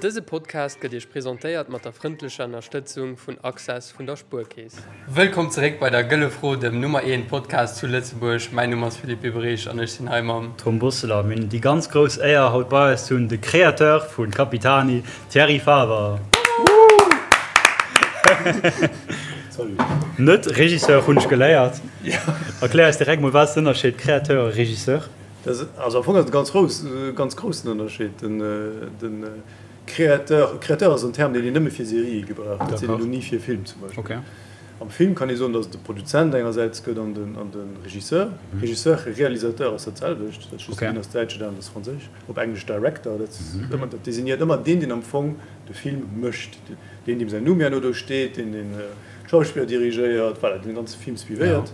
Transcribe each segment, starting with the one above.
Dëse Podcast gëtt Iech presentéiert mat der frëndlecher Ënnerstëtzung vun Access vun der Spuerkeess. Wëllkomm zeréck bei der Gëlle Fro, dem Nummer 1 Podcast zu Lëtzebuerg. Mäin Numm ass Philippe Biberich an ech sinn hei mam. Tom Bosseler. Mir hunn déi ganz grouss Éier haut bei eis ze hunn de Créateur vu Capitani, Thierry Faber. Salut. Net Regisseur hunn ech geléiert. Erklär eis direkt mol, wat ass den Ënnerscheed Créateur a Regisseur? Also am Fong ass et e ganz grouss, ganz groussen Ënnerscheed. Den, den Créateur, Créateur ass en Term, deen een nëmme fir Serië gebraucht. Dat seet een elo ni fir Film zum Beispill. Okay. Am Film kann ee soen, datt et de Produzent engersäits gëtt an den, an de Regisseur. Regisseur, Realisateur ass dat selwecht, dat ass just, deen ass däitsch, deen aneren ass franséisch. Op Englesch Director, dat ass ëmmer, dat designéiert ëmmer deen, deen am Fong de Film mécht, deen, deem säin Numm herno do steet, deen, deen d'Schauspiller dirigéiert, voilà, deen de ganze Film suivéiert.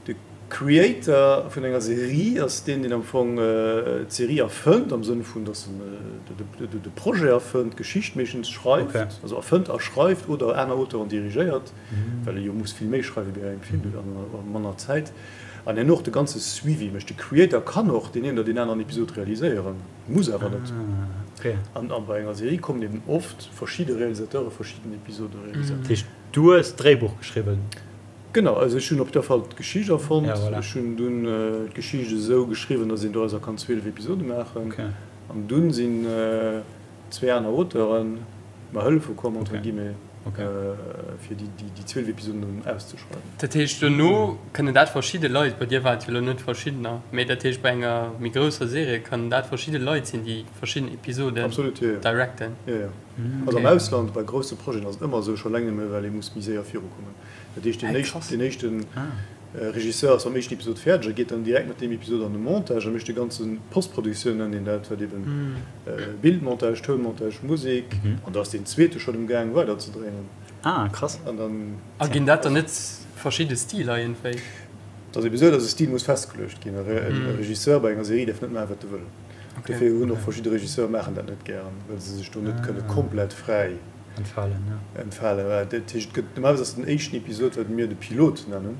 De Creator vun enger Serie ass deen, deen am Fong d'Serie erfënnt, am Sënn vun, datt en de Projet erfënnt, d'Geschicht meeschtens schreift, also erfënnt a schreift oder aner Auteuren dirigéiert, well e jo muss vill méi schreiwe wéi bei engem Film a manner Zäit, an herno och de ganze Suivi mécht. De Creator kann och deen een oder deen aneren Episod realiséieren, muss awer net. An bei enger Serie kommen eben oft verschidde Realisateure verschidden Episode realiséieren. Dat heescht, du hues d'Dréibuch geschriwwen? Genau, also ech hunn op jidder Fall d'Geschicht erfonnt. Ja, voilà. Ech hunn dunn d'Geschicht esou geschriwwen, datt een dorauser kann 12 Episode maachen. Okay. An dunn sinn zwee aner Auteuren mer hëllefe komm, entre Okay. guillemets, Okay. fir déi, déi, déi 12 Episoden dann auszeschreiwen. Dat heescht, dono kënnen dat verschidde Leit, bei dir waren et jo elo net verschiddener, mee dat heescht, bei enger méi grousser Serie kënnen dat verschidde Leit sinn, déi verschidden Episoden Absolut, jo, jo. directen. Jo, jo. Also am Ausland, bei grousse Projeten ass et ëmmer esou, scho eleng nëmme well ee muss méi séier virukommen. Dat heescht, deen éischten, deen éischten Regisseur ass mam éischten Episod fäerdeg a geet dann direkt mat deem Episod an de Montage a mécht de ganze Postproduktioun, nennt een dat, wat eben Bildmontage, Tounmontage, Musek, an da ass deen zweete schonn um Gaang weider ze dréinen. Ah, krass. An dann. A ginn dat dann net verschidde Stiler iergendwéi? Et ass ebe sou, datt e Stil muss festgeluecht ginn. E Regisseur bei enger Serie däerf net maachen, wat e wëll. Dofir hunn och verschidde Regisseure maachen dat net gären, well se sech do net kënne komplett fräi. Entfalen, ja. Entfalen, voilà. Dat heescht, et gëtt normalerweis ass den éischten Episod, wat mir de Pilot nennen,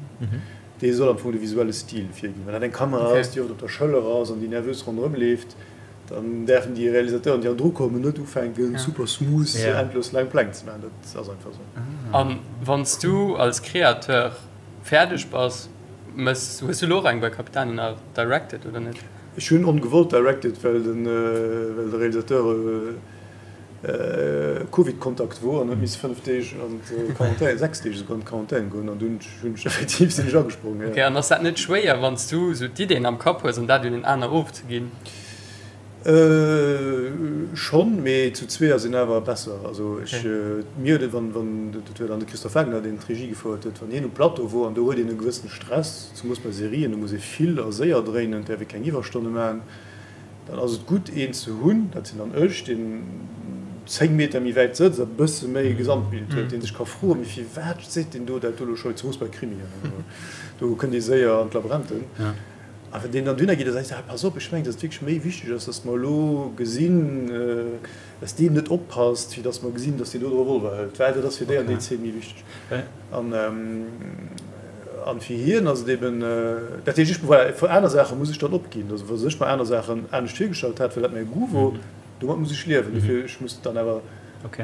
dee soll am Fong de visuelle Stil virginn. Wann dat eng Kamera ass, déi oft op der Schëller ass an déi nervös ronderëm leeft, dann däerfen déi Realisateuren, déi hannendru kommen, net ufänken, super smooth endlos laang Pläng ze maachen. Dat ass einfach esou. A wann s du als Créateur fäerdeg bass, mëss, hues du elo och eng bei Capitani nach directed oder net? Ech hunn ongewollt directed, well den, well de Realisateur, Covid-Kontakt wor an huet misse 5 Deeg an d'Quarantän, 6 Deeg esouguer an d'Quarantän goen an dunn hunn ech effektiv sinn ech agesprongen, jo. Ok, an ass dat net schwéier wann s du esou d'Ideen am Kapp hues an dat un en aner ofzeginn? Schonn, mee zu zwee ass een awer besser. Also ech, mir huet et, wann, wann, dat war dann de Christophe Wagner deen d'Regie gefouert huet, wann hien um Plateau wor an do huet een e gewëssene Stress, zemoos bei Serien, do muss ee vill a séier dréinen, et däerf ee keng Iwwerstonne maachen, Dann ass et gutt een ze hunn, dat sinn dann ech, deen 10 Meter méi wäit sëtzt a bësse méi e Gesamtbild huet, dee sech ka froen, mee firwat seet deen do dat do elo scho, zemoos bei Krimien, do kënnt ee séier an d'Labränten. A wann deen dann dohinner geet a seet, ah pass op, ech mengen, datt et wierklech méi wichteg ass, datt mer elo gesinn, datt deen net oppasst, fir datt mer gesinn, datt deen do de Revolver hëlt, well dat ass fir déi an déi Zeen méi wichteg. An an fir hien ass et eben, dat heescht, ech, voilà, fir aner Saache muss ech dann opginn. Also wa ech mer aner Saachen anescht virgestallt hat, well dat mäi Goût wor, domat muss ech liewen. Dofir, ech muss dann awer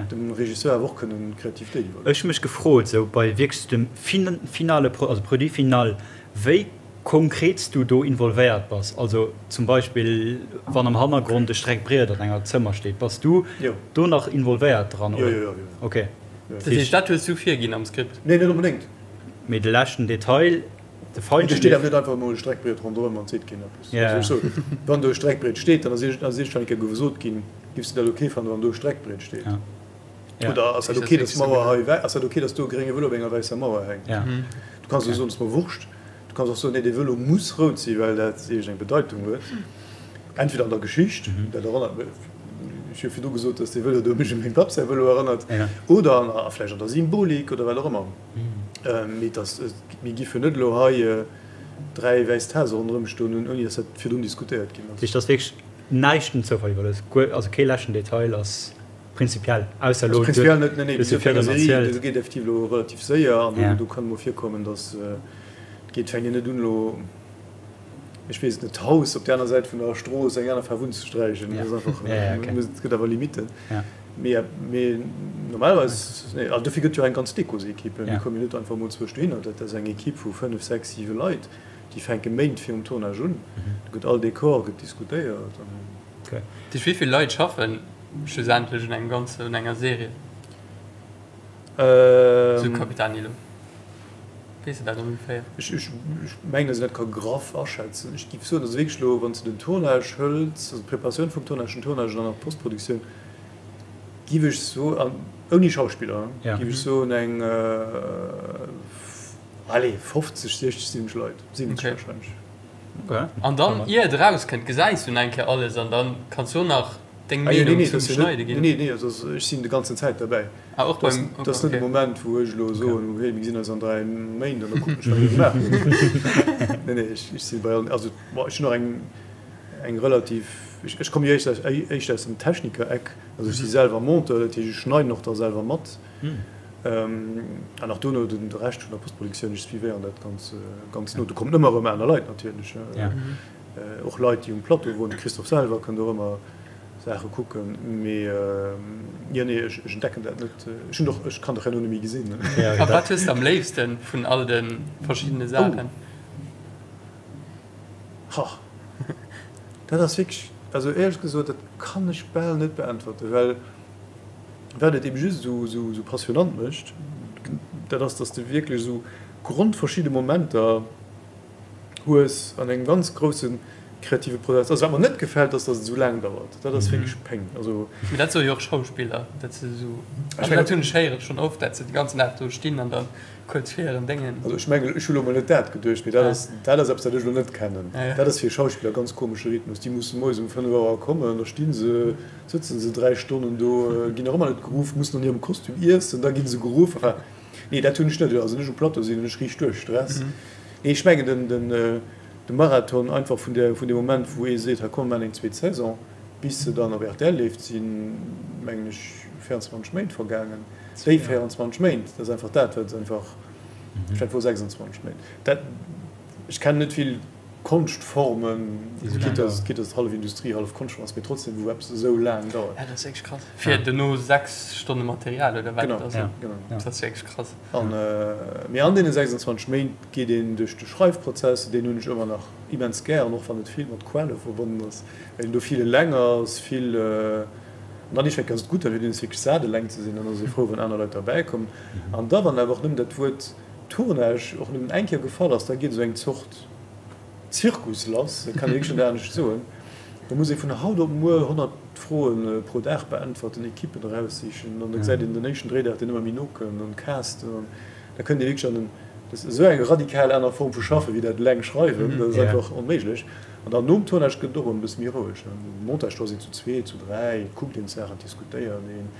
dem Regisseur awer och kënnen d'Kreativitéit iwwerloossen. Ech hu mech gefrot, esou bei wierklech dem finale, also Produit final, wéi konkret s du do involvéiert bass. Also zum Beispill wann am Hannergrond e Streckbriet an enger Zëmmer steet, bass du do nach involvéiert dran, oder? Jo, jo, jo. Okay. Dat heescht, dat hues du virginn am Skript? Nee, net onbedéngt. Mee de leschten Detail, de Feinschliff. Do steet awer net einfach emol e Streckbriet ronderëm an et seet keen eppes. Ja. Also ech soen, wann do e Streckbriet steet, dann ass iergendwann eng Kéier gesot ginn, Giffs de dat ok fannen, wann do e Streckbriet steet? Ja. Ja. Oder ass dat ok, dass d'Mauer hei wä-, ass dat ok, dass do e grénge Vëlo op enger wäisser Mauer hänkt? Ja. Du kanns och soen, et ass mer Wurscht. Du kanns och soen, nee, dee Vëlo muss rout sinn, well dat iergendeng Bedeitung huet. Entweder an der Geschicht, dat erënnert mech, ech hu virdu gesot, dass dee Vëlo do mech u mengem Papp säi Vëlo erënnert, oder an, a vläicht an der Symbolik oder wat och ëmmer. Mee et ass, mir giffen net elo hei 3 wäiss Tase ronderëm stoen hunn, ouni dass dat virdrun diskutéiert ginn ass. Dat heescht, et ass wierklech näischt dem Zoufall iwwerlooss, guer, also kee leschten Detail ass prinzipiell, ausser elo, Also prinzipiell net, nee, nee, du hues jo bei enger virdrun Serie, erzielt. do geet effektiv elo relativ séier an do kann emol virkommen, dass et geet, fänkt een net un elo. Ech weess et net, d'Haus op där aner Säit vun der Strooss eng aner Faarf unzesträichen. Dat ass einfach, et gëtt awer Limitten. Mee, mee normalerweis, nee, also dofir gëtt jo eng ganz Dekosequipe. Mir komme jo net einfach emol zwousch dohinner. Dat ass eng Equipe vu 5, 6, 7 Leit, déi fänke Méint virum Tournage un. Do gëtt all Dekor gëtt diskutéiert an. Duerch wéi vill Leit schaffen schlussendlech un engem ganzen, un enger Serie? Sou Capitani elo. Weess de dat ongeféier? Ech mengen, datt een dat ka graff aschätzen. Ech géif soen, also wierklech elo, wann s de den Tournage hëls, also d'Preparatioun vum Tournage, den Tournage an dann nach d'Postproduktioun, géif ech soen, ouni Schauspiller, géif ech soen, eng, allez, 50, 60, 70 Leit, 70 warscheinlech. An dann, ier et erauskënnt, gesäis du nach eng Kéier alles an dann kanns du och nach deng Meenung zum Schneide ginn. Nee, nee, also ech sinn de ganzen Zäit derbäi. Ah, och beim, okay. Dat ass net e Moment, wou ech elo soen, hey, mir gesinn eis an 3 Méint an da kucken ech, wat dir gemaach hutt. Nee, nee, ech si bei allen, also bon, ech hunn och eng, eng relativ, ech komme jo éischter aus dem Techniker-Eck, also ech si selwer Monteur, dat heescht, ech schneiden och da selwer mat. An och dono de Rescht vun der Postproduktioun, ech suivéieren dat ganz, ganz no. Do kommen ëmmer erëm aner Leit natierlech, och Leit, déi um Plateau woren. De Christophe selwer kënnt och ëmmer Saache kucken. Mee jo, nee, ech entdecken dat net. Ech hunn och, ech kann dach herno net méi gesinn. A wat hues de am léifste vun all de verschiddene Saachen? Ha, dat ass wierklech, also éierlech gesot, dat kann ech bal net beäntwerten, well Wat et eben just esou passionant mécht, dat ass, dass de wierklech esou grondverschidde Momenter hues an engem ganz grousse kreative Prozess. Also wat mer net gefält, ass, dass et esou laang dauert. Dat ass wierklech Péng. Also. Mee dat soe jo och Schauspiller, dat se esou, also dat hunn ech héieren schonn oft, dat se de ganzen Dag do stinn an da kuerz vir hiren Déngen. Also ech mengen, ech hu lo mol net dat geduecht, mee dat ass, dat ass eppes, wat ech elo net kennen. Dat ass fir e Schauspiller e ganz komesche Rhythmus. Déi musse moies um 5 Auer kommen, da sti se Sëtzen se 3 Stonnen do, ginn nach ëmmer net geruff, mussen an hirem Kostüm iessen, da gi se geruff. Enfin, nee, dat hunn ech net. Also, wann ech um Plateau sinn, hunn ech riicht duerch Stress. Nee, ech mengen den, den, de Marathon einfach vun där, vun deem Moment, wou ee seet, hei komm, mir maachen eng zweet Saison, bis se dann op rtl leeft, sinn, mengen ech, 24 Méint vergaangen. Déi 24 Méint, dat ass einfach dat, wat einfach, ech mengen, et wor 26 Méint. Dat, ech kennen net vill. Konschtformen, quitte dass quitte dass et hallef Industrie, hallef Konschtform ass, mee trotzdem wou eppes esou laang dauert. Ja, dat ass wierklech krass. Fir dono 6 Stonne Material oder wat et ass. Genau, genau. Dat ass wierklech krass. An, mee an deene 26 Méint geet een duerch de Schreifprozess, deen hunn ech ëmmer nach immens gär, an och wann et vill mat Quale verbonnen ass, well een do vill eleng ass, vill, an dann iergendwann ass et gutt, dann huet een es wierklech sat eleng ze sinn, dann ass ee frou wann aner Leit derbäi kommen. An da wann awer och nëmmen dat Wuert Tournage och nëmmen eng Kéier gefall ass, da geet esou eng Zort Zirkus lass, dat kann ee wierklech net anescht soen. Da muss ee vun haut op muer 100 Froe pro Dag beäntwerten, Ekippen eraussichen an da gesäit een den éischten Dréidag, deen ëmmer méi no kënnt an casten an da kënnt ee wierklech an en, dat ass esou eng radikal aner Form vu Schaffen, wéi dat eleng schreiwen, dat ass einfach onméiglech. An dann nom Tournage gëtt et och erëm e bësse méi roueg. Um Montage, do ass een zu zwee, zu dräi, et kuckt een d'Saachen, et diskutéiert een.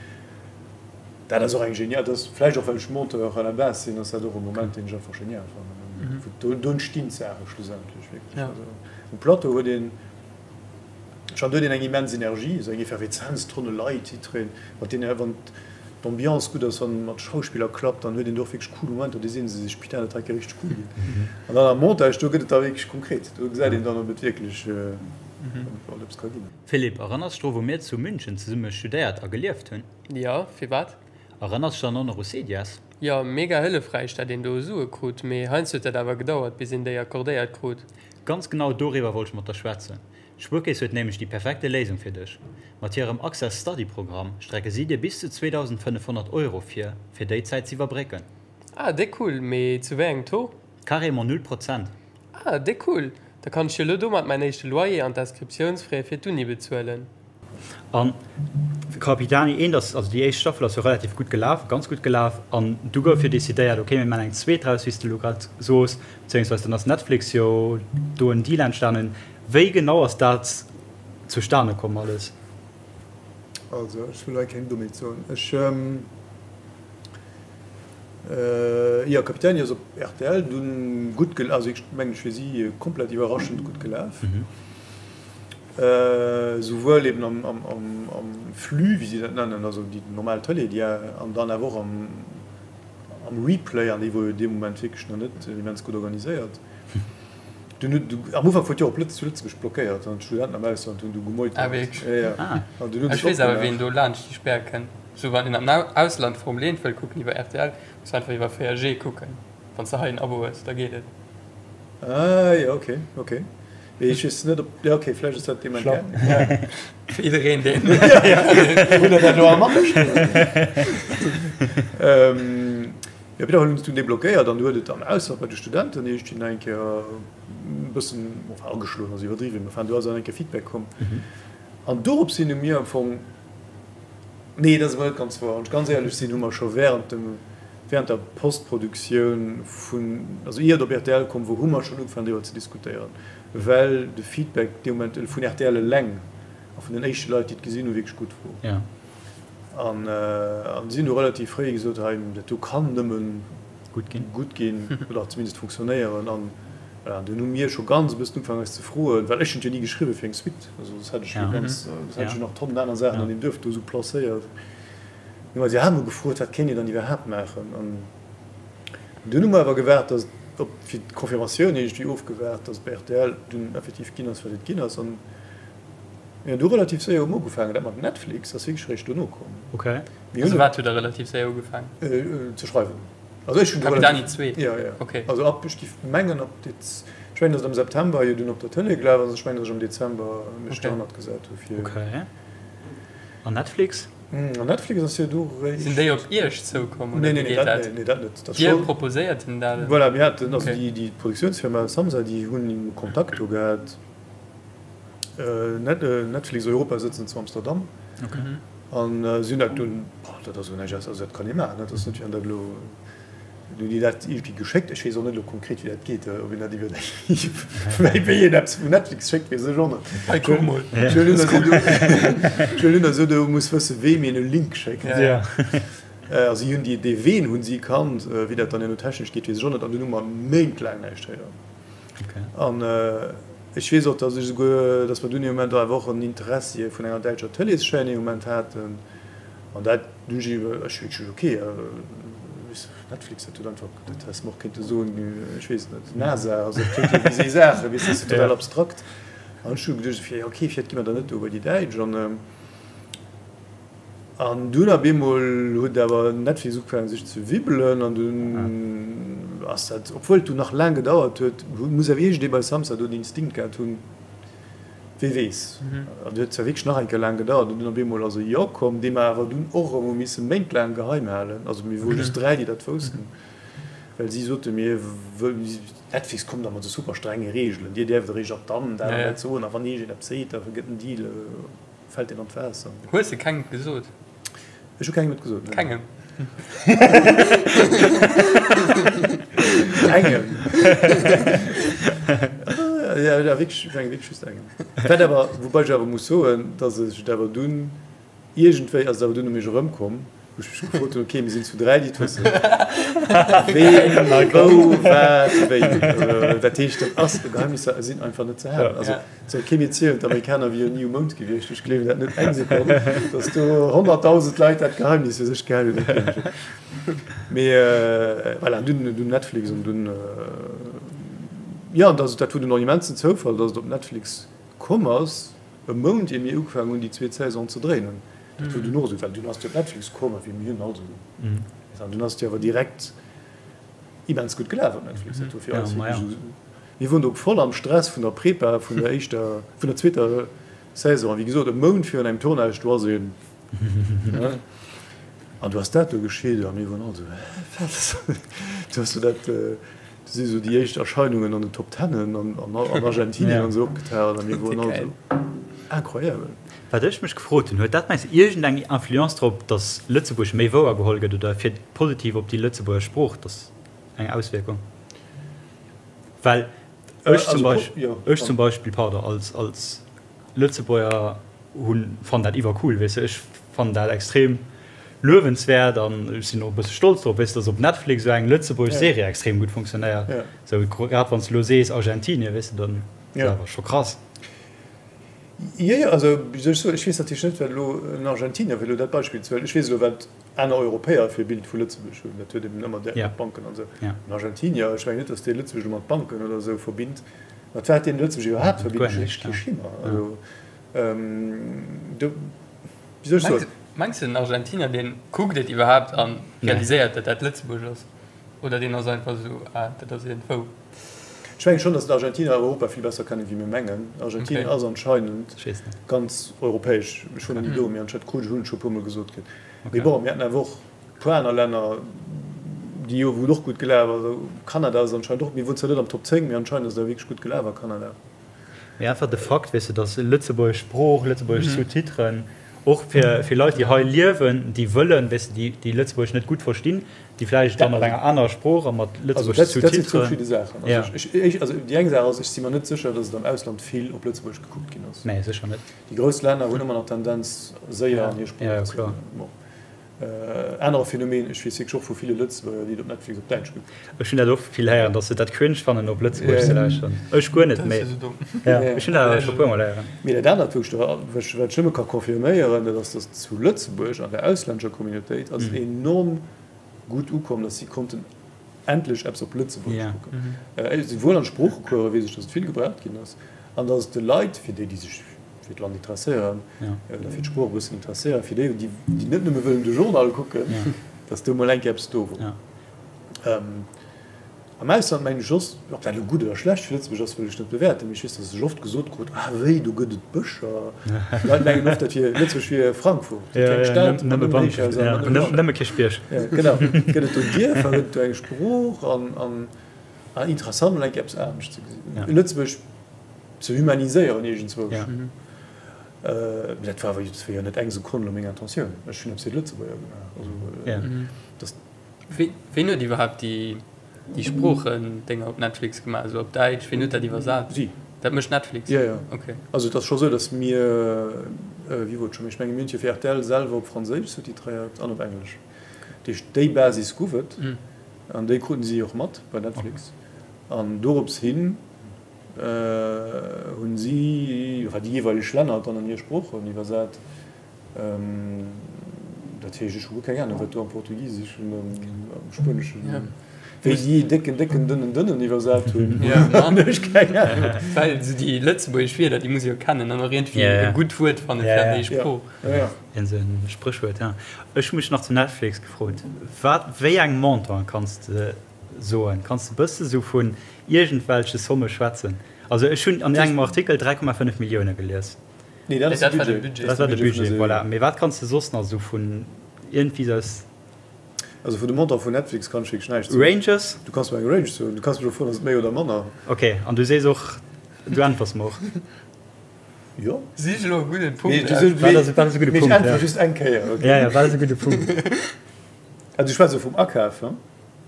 Dat ass och eng genial, dat ass vläicht och well ech Monteur à la base sinn, ass dat och e Moment deen ech einfach genial fannen. Wou do entstinn d'Saache schlussendlech wierklech. Also um Plateau huet een schonn, do huet een eng immens Energie, esou eng Effervezenz, Tonne Leit, jiddwereen, mat deenen, wann d'Ambiance gutt ass, wann mat Schauspiller klappt, dann huet een do och wierklech cool Momenter, do si se sech, putain dat hei ka richteg cool ginn. An dann am Montage, do gëtt et da wierklech konkret, do gesäit een dann ob et wierklech, ob et eppes ka ginn. Philippe, erënners dech dru wou mir zu München zesumme studéiert a gelieft hunn? Jo, firwat? Erënners dech dann och nach u Cedias? Jo, mega hëllefräich dat een do Sue krut, mee heiansdo huet dat awer gedauert bis een déi accordéiert krut. Ganz genau doriwwer wollt ech mat der schwätzen. D'Spuerkeess huet nämlech déi perfekte Léisung fir dech. Mat hirem Access Study Programm strecke si dir bis zu 2.500 Euro vir, fir déi Zäit z'iwwerbrécken. Ah, déck cool, mee zu wéi engem Taux? Carrément null Prozent. Ah, déck cool, da kann ech jo lo domat mäin éischte Loyer an d'Inscriptiounsfrais fir d'Uni bezuelen. An Capitani eent ass, also déi éischt Staffel ass jo relativ gutt gelaf, ganz gutt gelaf, an du gouf jo decidéiert, okay, mir maachen eng zweet draus, wéi s de elo grad sos, beziéungsweis dann ass Netflix jo do en Deal entstanen. Wéi genau ass dat zustane komm alles? Also ech wëll hei keng Dommheet soen. Ech, jo, Capitani ass op rtl dunn gutt gelaf, also ech mengen ech fir si komplett iwwerraschend gutt gelaf. Souwuel eben am Flux, wéi si dat nennen, also déi normal Tëlee, déi an dann awer och am Replay, an déi wor jo dee Moment wierklech nach net immens gutt organiséiert. Dunn huet, am Ufank wor et jo op Lëtz, zu Lëtzebuerg blockéiert an d'Studenten am Ausland hunn du gemeutert. Ah wierklech? Ja, ja. Ah. An dunn hunn se Ech weess awer opgemaach. ween do laanscht déi Spär kënnt. Sou wann een am Ausland Formel 1 wëll kucken iwwer rtl, muss einfach iwwer 4G kucken. Wann s de hei en Abo hues, da geet et. Ah jo, ok, ok. Mee ech weess net op, jo ok, vläicht ass dat dee Moment Schlapp. gaangen. Fir jiddereen deen. Hutt der dat elo all matgeschriwwen? Jo, op jidder Fall hunn se dunn deblockéiert an du huet et am Ausland bei de Studenten iergendwéi nach eng Kéier e bëssen, enfin ageschloen ass iwwerdriwwen, mä enfin do ass nach eng Kéier Feedback komm. An dorops hin hu mir am Fong, nee dat ass awer net ganz wouer, wann ech ganz éierlech sinn, hu mer scho während dem, während der Postproduktioun vun, also ier et op rtl komm wor, hu mer schonn ugefaangen driwwer ze diskutéieren, well de Feedback dee Moment vun rtl eleng a vun den éischte Leit déi et gesinn hu wierklech gutt wor. An si hunn du relativ fréi gesot, hei, dat do kann nëmmen gutt ginn oder zumindest funktionéieren. An voilà, dunn hu mir scho ganz e bëssen ugefaangen eis ze froen, well ech hunn et jo ni geschriwwen fir eng Suite, also soss hätt ech jo ganz, soss hätt ech jo nach Tonnen aner Saachen an deem Duerf do esou placéiert. Hu mer eis iwwerhaapt mol gefrot, wat kéint een dann iwwerhaapt maachen? An dunn hu mer awer gewaart, datt op, fir d'Confirmatioun iergendwéi ofgewaart, datt et bei rtl dunn effektiv ginn ass, wat et ginn ass. An Mir hunn du relativ séier um ugefaangen. Dat mat Netflix ass wierklech eréischt dono komm. Ok. Mir hunn Also wat hutt der relativ séier ugefaangen? Ze schreiwen. Also ech hunn du Capitani relativ, 2? Jo, jo. Ok. Also ab, ech géif mengen ab Dez, ech mengen, datt et am September jo dunn op der Tëlee gelaf ass. Ech mengen, datt ech am Dezember mech Ok. derhannert gesat hu fir. Ok. An Netflix? An Netflix ass jo du Sinn eréischt. déi op Iech zoukomm Nee, oder nee, wéi nee, geet dat, dat? nee, nee, dat net. Dat Dir scho. proposéiert hinnen dat? Voilà, mir haten, also Ok. déi, déi Produktiounsfirma Samsa, déi hunn Kontakt do gehat. Netflix Europa sëtzen zu Amsterdam an si hunn dat dunn, dat ass elo näischt aus, also dat kann ee maachen, dat ass net wéi wann dat elo, hunn déi dat iergendwéi geschéckt, ech weess och net elo konkret wéi dat geet, ob een dat iwwer wéi wéi een eppes vun Netflix schéckt, weess ech och net. Hei kuck mol. Ech huelen un, datt ee do muss wësse weem een e Link schéckt. Also si hunn déi, dee Ween hunn si kannt, wéi dat dann herno technesch geet, weess ech och net an dunn hu mer méintlaang näischt héieren. An ech weess och, datt ech esouguer, datt mer dunn ee Moment awer och en Interessi vun enger däitscher Tëleeschaîne ee Moment haten. An dat hunn ech iwwer, ech hu gesot, okay, weess de, Netflix, dat huet einfach, dat häss mer och kéinte soen, ech weess et net, NASA, also dat kléngt jo wéi esou Saachen, weess de, dat ass jo total abstrakt. An ech hu geduecht, jo okay, vläicht gi mer dann net do bei déi Däitsch. An An dunn op eemol huet awer Netflix ugefaangen sech ze wibbelen an dunn ass dat, obwuel et dunn nach laang gedauert huet, muss awer iergendee bei Samsa do den Instinkt gehat hunn, wee weess. An et huet zwar wierklech nach eng Kéier laang gedauert an dunn op eemol ass e Jo komm, dee mer awer dunn och erëm hu misse méintlaang geheim halen. Also mir wore just 3, déi dat woussten, well si sote mir, Netflix kommt da mat esou super strenge Reegelen, dir däerft eréischt ab dann dat an dat soen a wann iergendeen eppes seet, da gëtt den Deal. Fällt deen an d'Waasser? Hues de kengem gesot? Ech hu kengem et gesot, nee. Kengem? Engem. Ja, ja, wierklech, ech menge wierklech just engem. Wat awer, woubäi ech awer muss soen, datt ech et awer dunn iergendwéi ass et awer dunn u mech erëmkomm, wou ech mech gefrot hunn, ok, mir sinn zu 3, déi et wëssen. Ween, wou, wat, wéi. Dat heescht, dat ass, Geheimnisser sinn einfach net ze halen. Also, Soll kee mir zielen, d'Amerikaner wieren ni um Mound gewiescht. Ech gleewen dat net eng Sekonn, datt do 100.000 Leit dat Geheimnis fir sech gehal hunn. Dat gleewen ech net. Mee voilà, dunn dunn Netflix an dunn, jo, an dat dat wor dunn och en immensen Zoufall, datt et op Netflix komm ass, e Mount ier mir ugefaangen hunn déi zweet Saison ze dréinen. Dat wor dunn och esou, well dunn ass et jo op Netflix komm a wéi mir hunn also, an dunn ass et jo awer direkt immens gutt gelaf op Netflix. Dat wor fir eis wierklech esou. Mir woren do voll am Stress vun der Prepa vun der éischter, vun der zweeter Saison. A wéi gesot, e Mount virun engem Tournage, do ass een, ne? An du ass dat do geschitt a mir woren all esou, Hä, wat? Du has do dat, do si sou déi éischt Erscheinungen an den Top Tennen an an Argentinien an esou opgetaucht a mir woren all esou, Incroyable! Wat ech mech gefrot hunn, huet dat mengs de iergendeng Influence drop, datt Lëtzebuerg méi wouer geholl gëtt oder fir positiv op déi Lëtzebuerger Sprooch, datt eng Auswierkung? Well ech zum Beispill, ech zum Beispill, pardon, als, als Lëtzebuerger hunn, fannen dat iwwercool, weess de. Ech fannen dat extrem luewenswäert an ech sinn och e bësse stolz drop, weess de, dass op Netflix esou eng lëtzebuergesch Serie extrem gutt funktionéiert. Esou grad wann s de elo sees Argentinien, weess de, dann ass dat awer scho krass. Jo, jo, also wéi soll ech soen, ech weess natierlech net, wat elo en Argentinier, fir elo dat Beispill ze huelen, ech weess elo, wat aner Europäer fir e Bild vu Lëtzebuerg hunn, dat huet eben ëmmer direkt mat Banken an esou. En Argentinier, ech mengen net, datt dee Lëtzebuerg elo mat Banken oder esou verbinnt. Mat wat deenen Lëtzebuerg iwwerhaapt verbinnt, ech hu kee Schimmer. Also, do, wéi soll ech soen? Mengs de den Argentinier deen kuckt et iwwerhaapt an realiséiert dat dat Lëtzebuerg ass? Oder deen ass einfach esou, ah dat ass iergendwou? Ech mengen schonn, datt d'Argentiner Europa vill besser kennen wéi mir mengen. Argentinien ass anscheinend ganz europäesch. Ech wor nach ni do, mee anscheinend krut ech, hunn ech scho e puermol gesot kritt. Mee bon, mir haten awer och e puer aner Länner, déi jo wou et och gutt gelaf ass. Kanada ass anscheinend och, mir wor zwar net am Top 10, mee anscheinend ass et awer wierklech gutt gelaf a Kanada. Mee einfach de Fakt, weess de, datt lëtzebuergesch Sprooch, lëtzebuergesch Sous-titren, och fir fir Leit, déi hei liewen, déi wëllen, weess de, déi déi Lëtzebuergesch net gutt verstinn, déi vläicht dann op enger anerer Sprooch a mat lëtzebuergesche Sous-titren. Dat sinn zwou verschidde Saachen. Also ech, also déi eng Saach ass, ech si mer net sécher, datt et am Ausland vill op Lëtzebuergesch gekuckt ginn ass. Nee, sécher net. Déi grouss Länner hunn ëmmer nach d'Tendenz, séier an hir Sprooch ze. Bon. Anere Phänomen, ech weess wierklech och vu ville Lëtzebuerger, déi et op Netflix op Däitsch kucken. Ech hunn dat och vill héieren, dass se dat cringe fannen op Lëtzebuergesch ze lauschteren. Ech guer net, mee ech hunn dat awer scho puer mol héieren. Mee dat anert, wou ech der, wat ech nëmme ka confirméieren, dat ass, dass zu Lëtzebuerg an der auslännescher Communautéit ass et enorm gutt ukomm, dass si konnten endlech eppes op Lëtzebuergesch kucken. Souwuel an Sproochecourse weess ech, dass et vill gebraucht ginn ass an dass et de Leit, fir déi, déi sech fir d'Land interesséieren oder fir d'Sprooch e bëssen interesséieren, fir déi, déi net nëmme wëllen de Journal kucken, dass do mol eng Kéier eppes do wor. Am Ausland mengen ech soss, ob dat elo gutt oder schlecht fir Lëtzebuerg ass, wëll ech net bewäerten, mee ech weess, dass ech oft gesot krut, Ah wéi, do gëtt et Bëscher. D'Leit mengen oft, dat wier, Lëtzebuerg wier Frankfurt, déi kleng Stad mat nëmmen Héichhaiser a mat nëmmen Nëmme Kierchbierg. Genau, gëtt et do Dierfer, gëtt et do eng Sprooch an interessant mol eng Kéier eppes anescht ze gesinn. Lëtzebuerg ze humaniséieren iergendzwousch. Mee dat war awer dat war jo net eng Sekonn elo meng Intentioun. Ech hunn eppes fir d'Lëtzebuerger gemaach. Also dass. Ween huet iwwerhaapt déi déi Sproochendénger op Netflix gemaach, esou op Däitsch? Ween huet dat iwwersat? Si. Dat mécht Netflix? Jo, jo. Okay. Also et ass scho sou, datt mir, wéi wor et scho méi, ech menge mir hunn et jo fir rtl selwer op Franséisch sous-titréiert an op Englesch. Dat heescht déi Basis gouf et an déi kruten si och mat bei Netflix. An dorops hin hunn si, enfin déi jeeweileg Länner dann an hir Sproochen iwwersat. Dat heescht, ech hu guer keng Ahnung, wat do am Portugiseschen an am Spueneschen, wéi si décken, décken, dënnen, dënnen iwwersat hunn, hunn ech keng Ahnung. Well esou déi lëtzebuergesch Wierder, déi muss ee jo kennen an och iergendwéi e gutt Wuert fanne fir an déi Sprooch. Iergend esou e Spréchwuert, ja. Ech hu mech nach zu Netflix gefrot, wat, wéi eng Montant kanns de soen? Kanns de bësse sou vun iergendwelche Somme schwätzen? Also ech hunn an engem Artikel 3,5 Millioune gelies. Nee, dat ass de Budget. Dat war de Budget, voilà. Mee wat kanns de soss nach esou vun iergendwéi aus. Also vun de Montant vun Netflix kann ech wierklech näischt soen. Ranges? Du kanns mer eng Range soen. Du kanns mech och froen, ass et méi oder manner? Ok, an du sees och, du äntwers mer och. Jo. Sich elo e gudden Punkt aus. Wat ass, wat ass e gudde Punkt? Mee ech äntwere just eng Kéier, ok? Ja, ja, wat ass e gudde Punkt? Also du schwätz elo vum Akaf, he?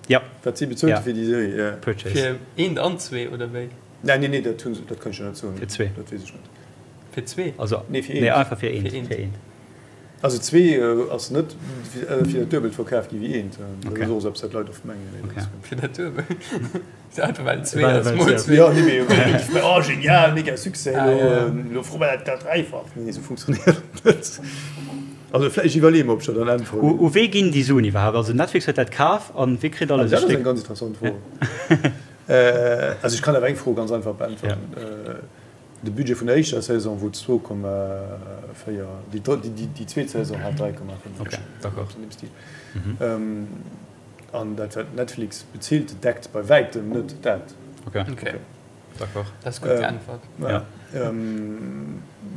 Ja. Wat si bezuelt hu fir déi Serie, ja. Purchase. Fir eent an zwee, oder wéi? Nee, nee, nee, dat hunn se, dat kann ech der net soen. Fir zwee. Dat weess ech net. Fir zwee? Also, nee, fir eent. Nee, einfach fir eent. Fir eent. Also zwee ass net fir dat Duebelt verkaf gi wéi eent. Dat ass och esou eppes, wat d'Leit oft mengen. Okay. Fir dat Duebelt? Einfach well et zwee ass, mol zwee. Jo, nee, mee, oh genial, mega Succès, elo froe mer dat dräifach. Nee, esou funktionéiert et net. Also vläicht, ech iwwerleeë mer, ob ech der dann äntweren. U wee ginn déi Suen iwwerhaapt? Also Netflix huet dat kaf an wee kritt alles e Stéck? Dat ass eng ganz interessant Fro. Also ech kann awer eng Fro ganz einfach beäntweren. De Budget vun der éischter Saison wor 2,4, déi zweet Saison hat 3,5. Ok, d'accord. An deem Stil. An dat wat Netflix bezilt, deckt bei wäitem net dat. Ok, d'accord. Dat ass gutt geäntwert. Ja.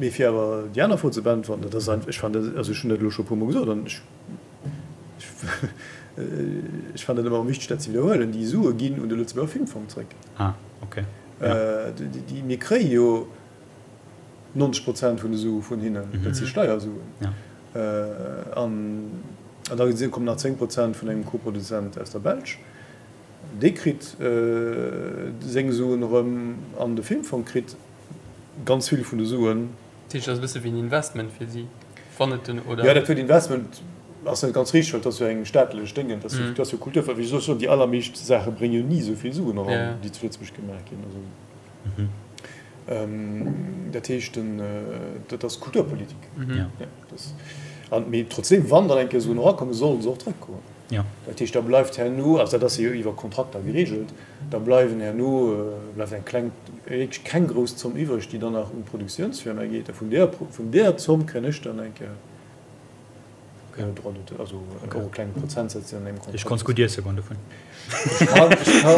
Mee fir awer déi aner Fro ze beäntwerten, dat ass einfach, ech fannen dat, also ech hunn dat elo scho e puermol gesot an ech, ech fannen dat ëmmer erëm wichteg dat ze widderhuelen, déi Sue ginn un de Lëtzebuerger Filmfong zréck. Ah, ok. Déi, mir kréie jo 90 Prozent vun de Sue vun hinnen, dat si Steiersuen. An da kommen nach 10 Prozent vun engem Koproduzent aus der Belsch. Dee kritt seng Suen erëm an de Filmfong kritt ganz vill vun de Suen. Dat heescht, dat ass e bësse wéi en Investment fir si, wann et den, oder? Jo, dat Wuert Investment ass net ganz richteg, well et ass jo eng staatlech Déngen, et ass jo Kultur. Wéi soll ech soen, déi allermeescht Saache brénge jo ni esou vill Suen eran, déi zu Lëtzebuerg gemaach ginn. Also, dat heescht, dat ass Kulturpolitik. Mee trotzdeem, wann dann eng Kéier Suen erakommen, sollen se och zrëckkommen. Dat heescht, da bleift herno, also dat ass jo iwwer Kontrakter geregelt, da bleiwen herno, bleift eng kleng, wierklech keng grouss Zomm iwwreg, déi dann nach un d'Produktiounsfirma geet. A vun där, vun där Zomm kréien ech dann eng Kéier Droit d'auteur, also och e klenge Prozentsaz, deen an engem Kontrakt. Ech konns gutt iesse goen dovun. Ech kann, ech kann,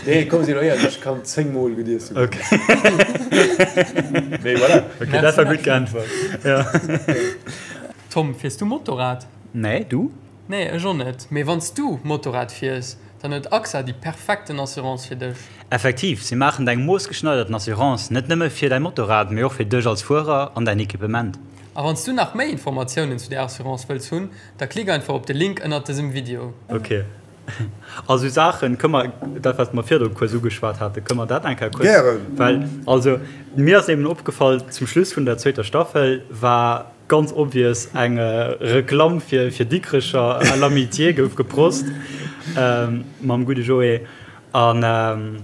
nee, komm, si elo éierlech, ech kann 10 Mol gutt iesse goen. Okay. Mee voilà. Okay, dat war gutt geäntwert. Ja. Tom, fiers du Motorrad? Nee, du? Nee, ech och net. Mee wann s du Motorrad fiers, dann huet AXA déi perfekten Assurance fir dech. Effektiv, si maachen deng moossgeschneiderten Assurance net nëmme fir däi Motorrad, mee och fir dech als Fuerer an däin Equipement. A wann s du nach méi Informatiounen zu där Assurance wëlls hunn, da klick einfach op de Link ënnert dësem Video. Ok. A sou Saachen, kënne mer, dat wat mer virdru kuerz ugeschwat haten, kënne mer dat eng Kéier kuerz. Gären. Well, also mir ass eben opgefall, zum Schluss vun der zweeter Staffel war ganz obvious eng Reklamm fir fir Dikrecher à l'amitié gouf geprost mam gudde Joé. An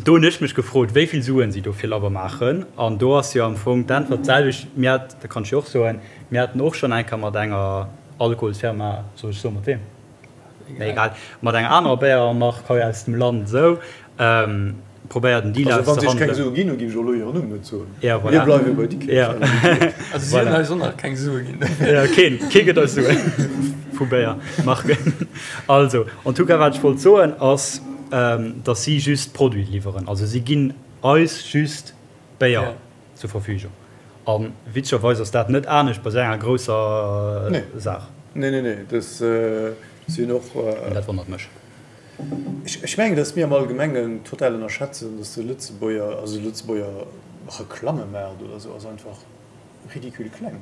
do hunn ech mech gefrot, wéi vill Suen si do fir labber maachen. An do ass jo am Fong d'Äntwert d'selwecht. Mir hat, dat kann ech jo och soen, mir haten och schonn eng Kéier mat enger Alkoholsfirma, soll ech soen mat weem? Mee egal, mat enger anerer Béiermark hei aus dem Land esou probéiert en Deal Also wann si iech keng auszehandelen. Sue ginn hunn, géif ech och elo hiren Numm net soen. Ja, voilà. Mir bleiwe bei Dikrech. Ja. Also si hunn eis och nach keng Sue ginn. Ja, keen, kee gëtt eis Suen vu Béiermarken. Also, en tout cas, wat ech wollt soen ass, dass si just Produite liwweren. Also si ginn eis just Béier zur Verfügung. A witzegerweis ass dat net anescht bei esou enger grousser Saach. Nee, nee, nee, dat sinn och. An dat wonnert mech. Ech mengen, datt mir am Allgemengen total ënnerschätzen, datt de Lëtzebuerger, also de Lëtzebuerger Reklammemaart oder esou ass einfach ridicule kleng.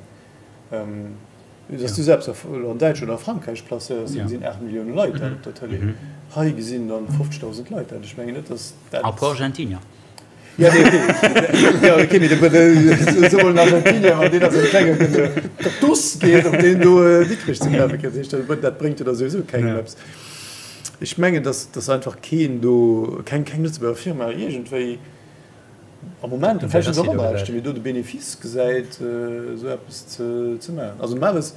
Datt du selbst an Däitschland oder a Frankräich placéiers, do gesinn 8 Millioune Leit dat op der Tëlee. Hei gesinn dann 50.000 Leit dat. Ech mengen net, datt dat. A puer Argentinier. Ja, nee, okay. Ja, okay, mee de, so mol en Argentinier, wann deen a sengem klenge Kaktus geet, op deen do Dikrech ze kafe kënnt, heescht dat, dat bréngt jo da souwisou kengem eppes. Ech mengen, dass, dass einfach keen do, keng, keng Lëtzebuerger Firma iergendwéi am Moment, vläicht sinn se och aner Aarbechten, mee do de Benefice gesäit, esou eppes ze, ze maachen. Also normalerweis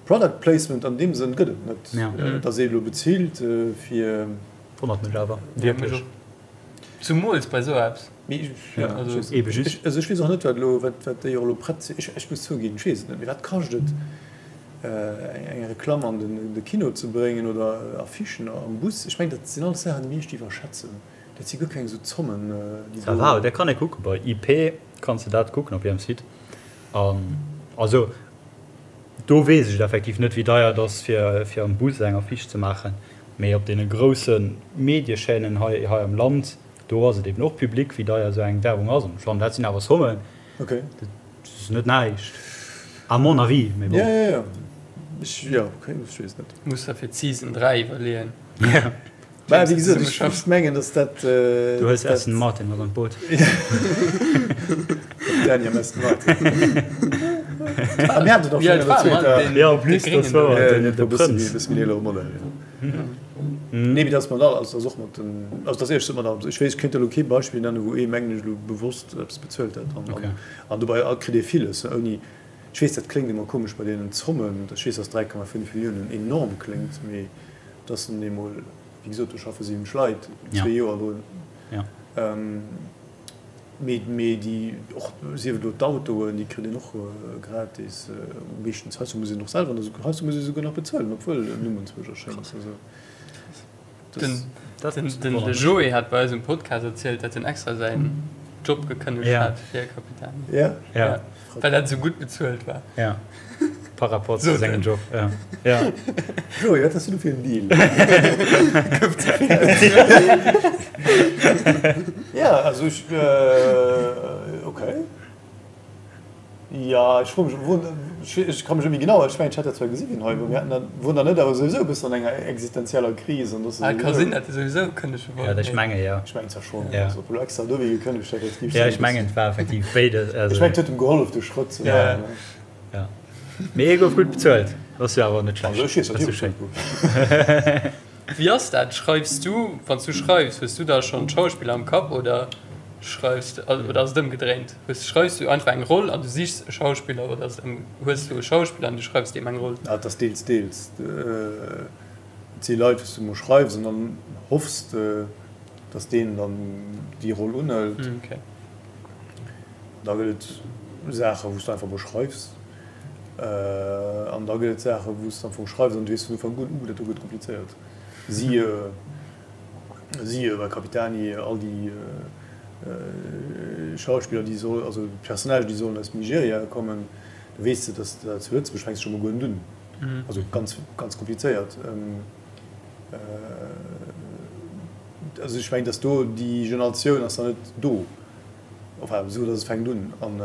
Product Placement an deem Sënn gëtt et net, dass ee elo bezilt fir. Wonnert mech awer wierklech. Zumools bei sou eppes. Mee ech, also ech weess och net, wat elo, wat déi och elo prett sinn. Ech muss zouginn, ech weess et net. Mee wat kascht et, eng Reklamm an de Kino ze bréngen oder Affichen am Bus? Ech mengen, dat sinn alles Saachen, déi mir echt iwwerschätzen. Dat si guer keng esou Zommen, déi do. Ça va, dat kann ee kucken. Bei IP kanns de dat kucken op hirem Site. An also do weess ech et effektiv net, wéi deier et ass, fir am Bus eng Affiche ze maachen. Mee op deene grousse Mediechaînen hei hei am Land, do ass et eben och public, wéi deier esou eng Werbung ass. An ech fannen, dat sinn awer Sommen, Okay. dat ass net näischt, à mon avis. Mee bon. Ja, ja, ja. Ech, ja, okay, ech weess net. Muss der fir d'Season 3 iwwerleeën. Ja. Mä wéi gesot, ech, ech mengen, datt dat, Du hues dat. Aston Martin mat an d'Boot. Capitaine am Aston Martin. Ah, mir haten et och schonn an der zweeter. Ja, en plus, dat war den, de Prënz. E bësse méi eelere Modell, jo. Nee, mee dat ass mat all, also dat ass och mat den, also dat ass éierlech gesot mat allem. Ech weess, ech kéint elo kee Beispill nennen, wou ee, mengen ech, elo bewosst eppes bezuelt hätt. An, an dobäi kritt ee villes, ouni, ech weess, dat kléngt ëmmer komesch bei deenen Zommen, ech weess, dass 3,5 Milliounen enorm kléngt, mee dat sinn eemol, wéi gesot, do schaffe 70 Leit zwee Joer drun. Mee, mee déi, och sief et elo d'Autoen, déi kritt een och gratis meeschtens. Heiansdo muss een och selwer, heiansdo muss ee souguer nach bezuelen, obwuel en Numm enzwousch erschéngt. Also dat. Den de Joé hat bei eis um Podcast erzielt, datt en extra säin Job gekënnegt hat fir Capitani. Ja? Ja, well dat esou gutt bezuelt war. Ja. Par rapport zu sengem Job, ja. Ja. Joé, wat has du do fir en Deal? Gouf ze vill bezuelt. Ja, also ech, okay. Ja, ech froe mech, wou, ech ka mech net méi genau, ech mengen, ech hätt dat zwar gesi wien hei wor, mir haten dat, wor der net awer souwisou e bëssen an enger existenzieller Kris an dass Ah, ka sinn, datt e souwisou kënnege wollt. Ja, ech menge jo. Ech mengen zwar schonn, also ob elo extra dowéi gekënnegt hätt, dat géif Ja, ech mengen, et war effektiv béides. Ech mengen, et huet em gehollef, de Schrëtt ze maachen. Ja. Mee hie gouf gutt bezuelt. Dat ass jo awer net schlecht. Also ech weess, datt hie bezuelt gouf. Wéi ass dat? Schreifs du, wann s du schreifs, hues du da schonn d'Schauspiller am Kapp oder? schreifs de, oder ass et ëmgedréint? Hues, schreifs du einfach eng Roll an du sichs e Schauspiller oder ass et ëm, hues du e Schauspiller an du schreifs deem eng Roll? Ah, et ass deels, deels. Et si Leit, wou s du emol schreifs an dann hoffs de, dass deen dann déi Roll unhëlt. Da gëtt et Saachen, wou s du einfach emol schreifs. An da gëtt et Saachen, wou s du am Fong schreifs an du weess vun Ufank un, uh, dat do gëtt komplizéiert. Siehe, siehe bei Capitani, all déi Schauspiller, déi soll, also d'Personnagen, déi sollen aus Nigeria kommen, da weess de, dass dat zu Lëtzebuerg fänks de scho mol guer net un. Also ganz, ganz komplizéiert. Also ech mengen, dass do déi Generatioun ass nach net do, enfin esou dass et fänkt un. An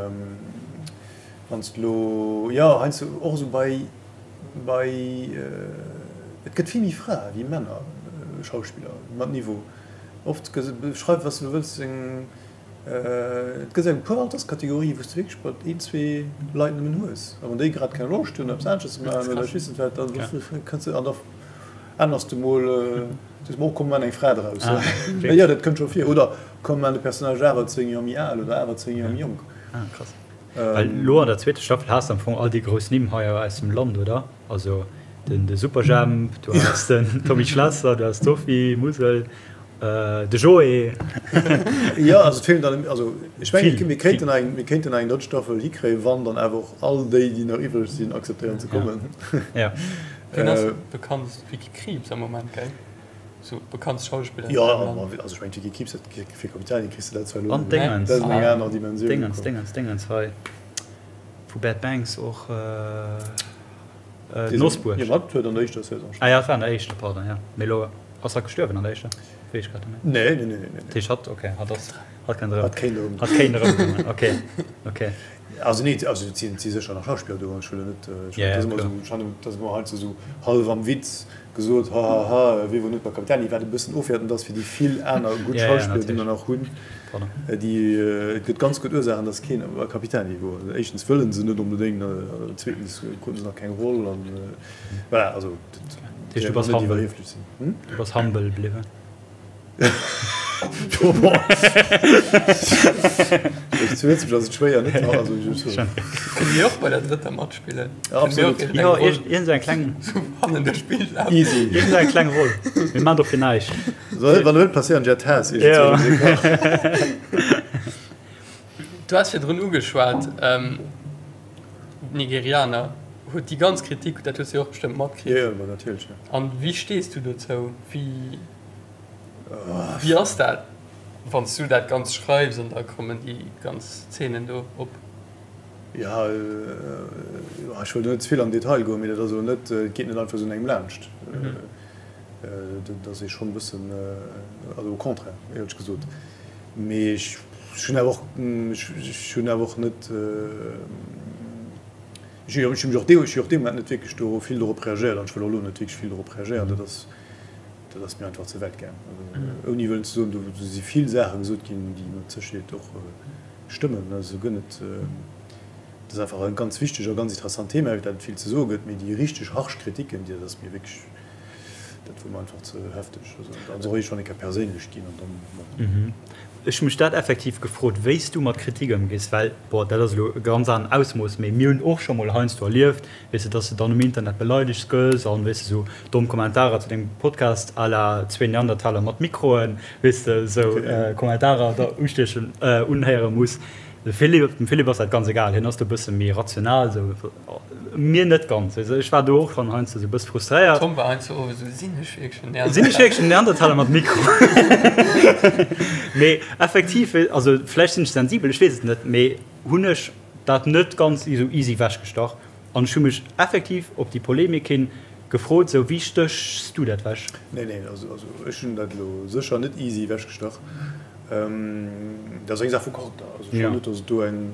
wann s de elo, jo heiansdo och esou bei, bei, et gëtt vill méi Frae wéi Männer Schauspiller mat Niveau. Oft schreif wat s de elo wëlls eng Et gëtt eng puer Alterskategorien, wou s de wierklech mat een, zwee Leit nëmmen hues. A wann déi grad keng Loscht hunn, eppes anesches ze maachen oder ech weess net wat, da kënns de an da ännerst de mol, sees mol, oh komm, mir maachen eng Fra draus. Jo, dat kënnt scho vir. Oder komm, mir maachen de Personnage awer 10 Joer méi al oder awer 10 Joer méi jonk. Ah, krass. Well elo an der zweeter Staffel has de am Fong all déi grouss Nimm hei aus dem Land, oder? Also den Superjhemp, du has den Tommy Schlesser, du has d'Sophie Musel. De Joé. Jo, also et feelen dann, also ech mengen, mir kéinten eng, mir kéinten eng drëtt Staffel hikréien, wann dann awer och all déi, déi nach iwwreg sinn, akzeptéieren ze kommen. Ja. Wien ass bekannt? D'Vicky Krieps am Moment, gell? Sou bekanntst Schauspillerin Jo, also ech mengen d'Vicky Krieps, dat fir Capitani kriss de dat zwar elo, dat ass eng aner Dimensioun. Dingens, Dingens, Dingens hei vu Bad Banks och. Nosbuerg. Jo, dat huet an der éischter Saison. Ah ja, dat war an der éischter, pardon, ja. Mee elo ass hatt gestuerwen an der éischter? Weess ech grad net méi. Nee, nee, nee, nee. Dat heescht hatt, okay, hatt ass, hatt kënnt erëm. Hatt kéint erëm. Hatt kéint erëmkommen, okay, okay. Also nee, also et sinn, et si sécher nach Schauspiller do, ech wëll net, ech ja, dat ass ëmmer esou, ech fannen, dat ass ëmmer heiansdo esou hallef am Witz gesot, ha, ha, ha, wee wor net bei Capitani, wat e bëssen ofwäertend ass fir déi vill aner gutt Schauspiller, déi mer nach hunn. Déi, et gëtt ganz gutt Ursaachen, datt keen bei Capitani wor. Éischtens wëlle se net onbedéngt, zweetens kruten se nach keng Roll an voilà, also dat heescht du bass humble, du bass humble bliwwen. Zu Lëtzebuerg ass et schwéier net also Kënne mir och bei der drëtter matspillen? Absolut. Jo, iergend eng kleng hannen duerch d'Bild lafen. Easy. Iergend eng kleng Roll. Mir maan dofir näischt. Soll wann net passéieren Jet Haas Du has virdrun ugeschwat d'Nigerianer huet déi ganz Kritik, dat hues de jo och bestëmmt matkritt. Jo, jo, natierlech, jo. An wéi stees du dozou? Wéi wéi ass dat wann s du dat Ganzt schreifs an da kommen déi ganz Zeenen do op? Jo, ech wëll do net ze vill an den Detail goen, mee dat ass elo net, et geet net einfach esou un engem laanscht. Dat ass ee schonn e bëssen, also au contraire, éierlech gesot. Mee ech hunn awer och, ech hunn awer och net, ech hunn mech och dee, ech hunn och dee Moment net wierklech do vill dorop reagéiert an ech wëll och elo net wierklech vill dorop reagéieren. Dat ass, dat ass mir einfach ze wäit gaang. Also ouni wëllen ze soen, do si vill Saache gesot ginn, déi mat Sécherheet och stëmmen, also guer net. Dat ass einfach e ganz wichteg a ganz interessant Thema, iwwer dat et vill ze soe gëtt. Mee déi richteg harsch Kritiken, déi, dat ass mir wierklech, dat wor mer einfach ze hefteg. Also dat ass och iergendwann eng Kéier perséinlech ginn an dann, bon. Ech hu mech dat effektiv gefrot, wéi s du mat Kritik ëmgees, well, bon, dat ass elo e ganz aneren Ausmooss, mee mir hunn och scho mol heiansdo erlieft, weess de, dass de dann um Internet beleidegt gëss an, weess de, sou domm Kommentarer zu dengem Podcast à la zwee Neandertaler mat Mikroen, weess de, sou Kommentarer da ustiechen, unhéiere muss. De Philippe, dem Philippe ass dat ganz egal, hien ass do e bësse méi rational, sou, mir net ganz. Also ech war do och schonn heiansdo sou e bësse frustréiert. Tom war heiansdo och esou, Sinn ech wierklech en Neandertaler? Sinn ech wierklech en Neandertaler mat Mikro? Mee effektiv, also vläicht sinn ech sensibel, ech weess et net, mee hunn ech dat net ganz esou easy wechgestach an ech hu mech effektiv op déi Polemik hin gefrot, sou, wéi stéchs du dat wech? Nee, nee, also ech hunn dat elo sécher net easy wechgestach. Dat ass eng Saach vu Charakter. Also ech fannen net, datt et do eng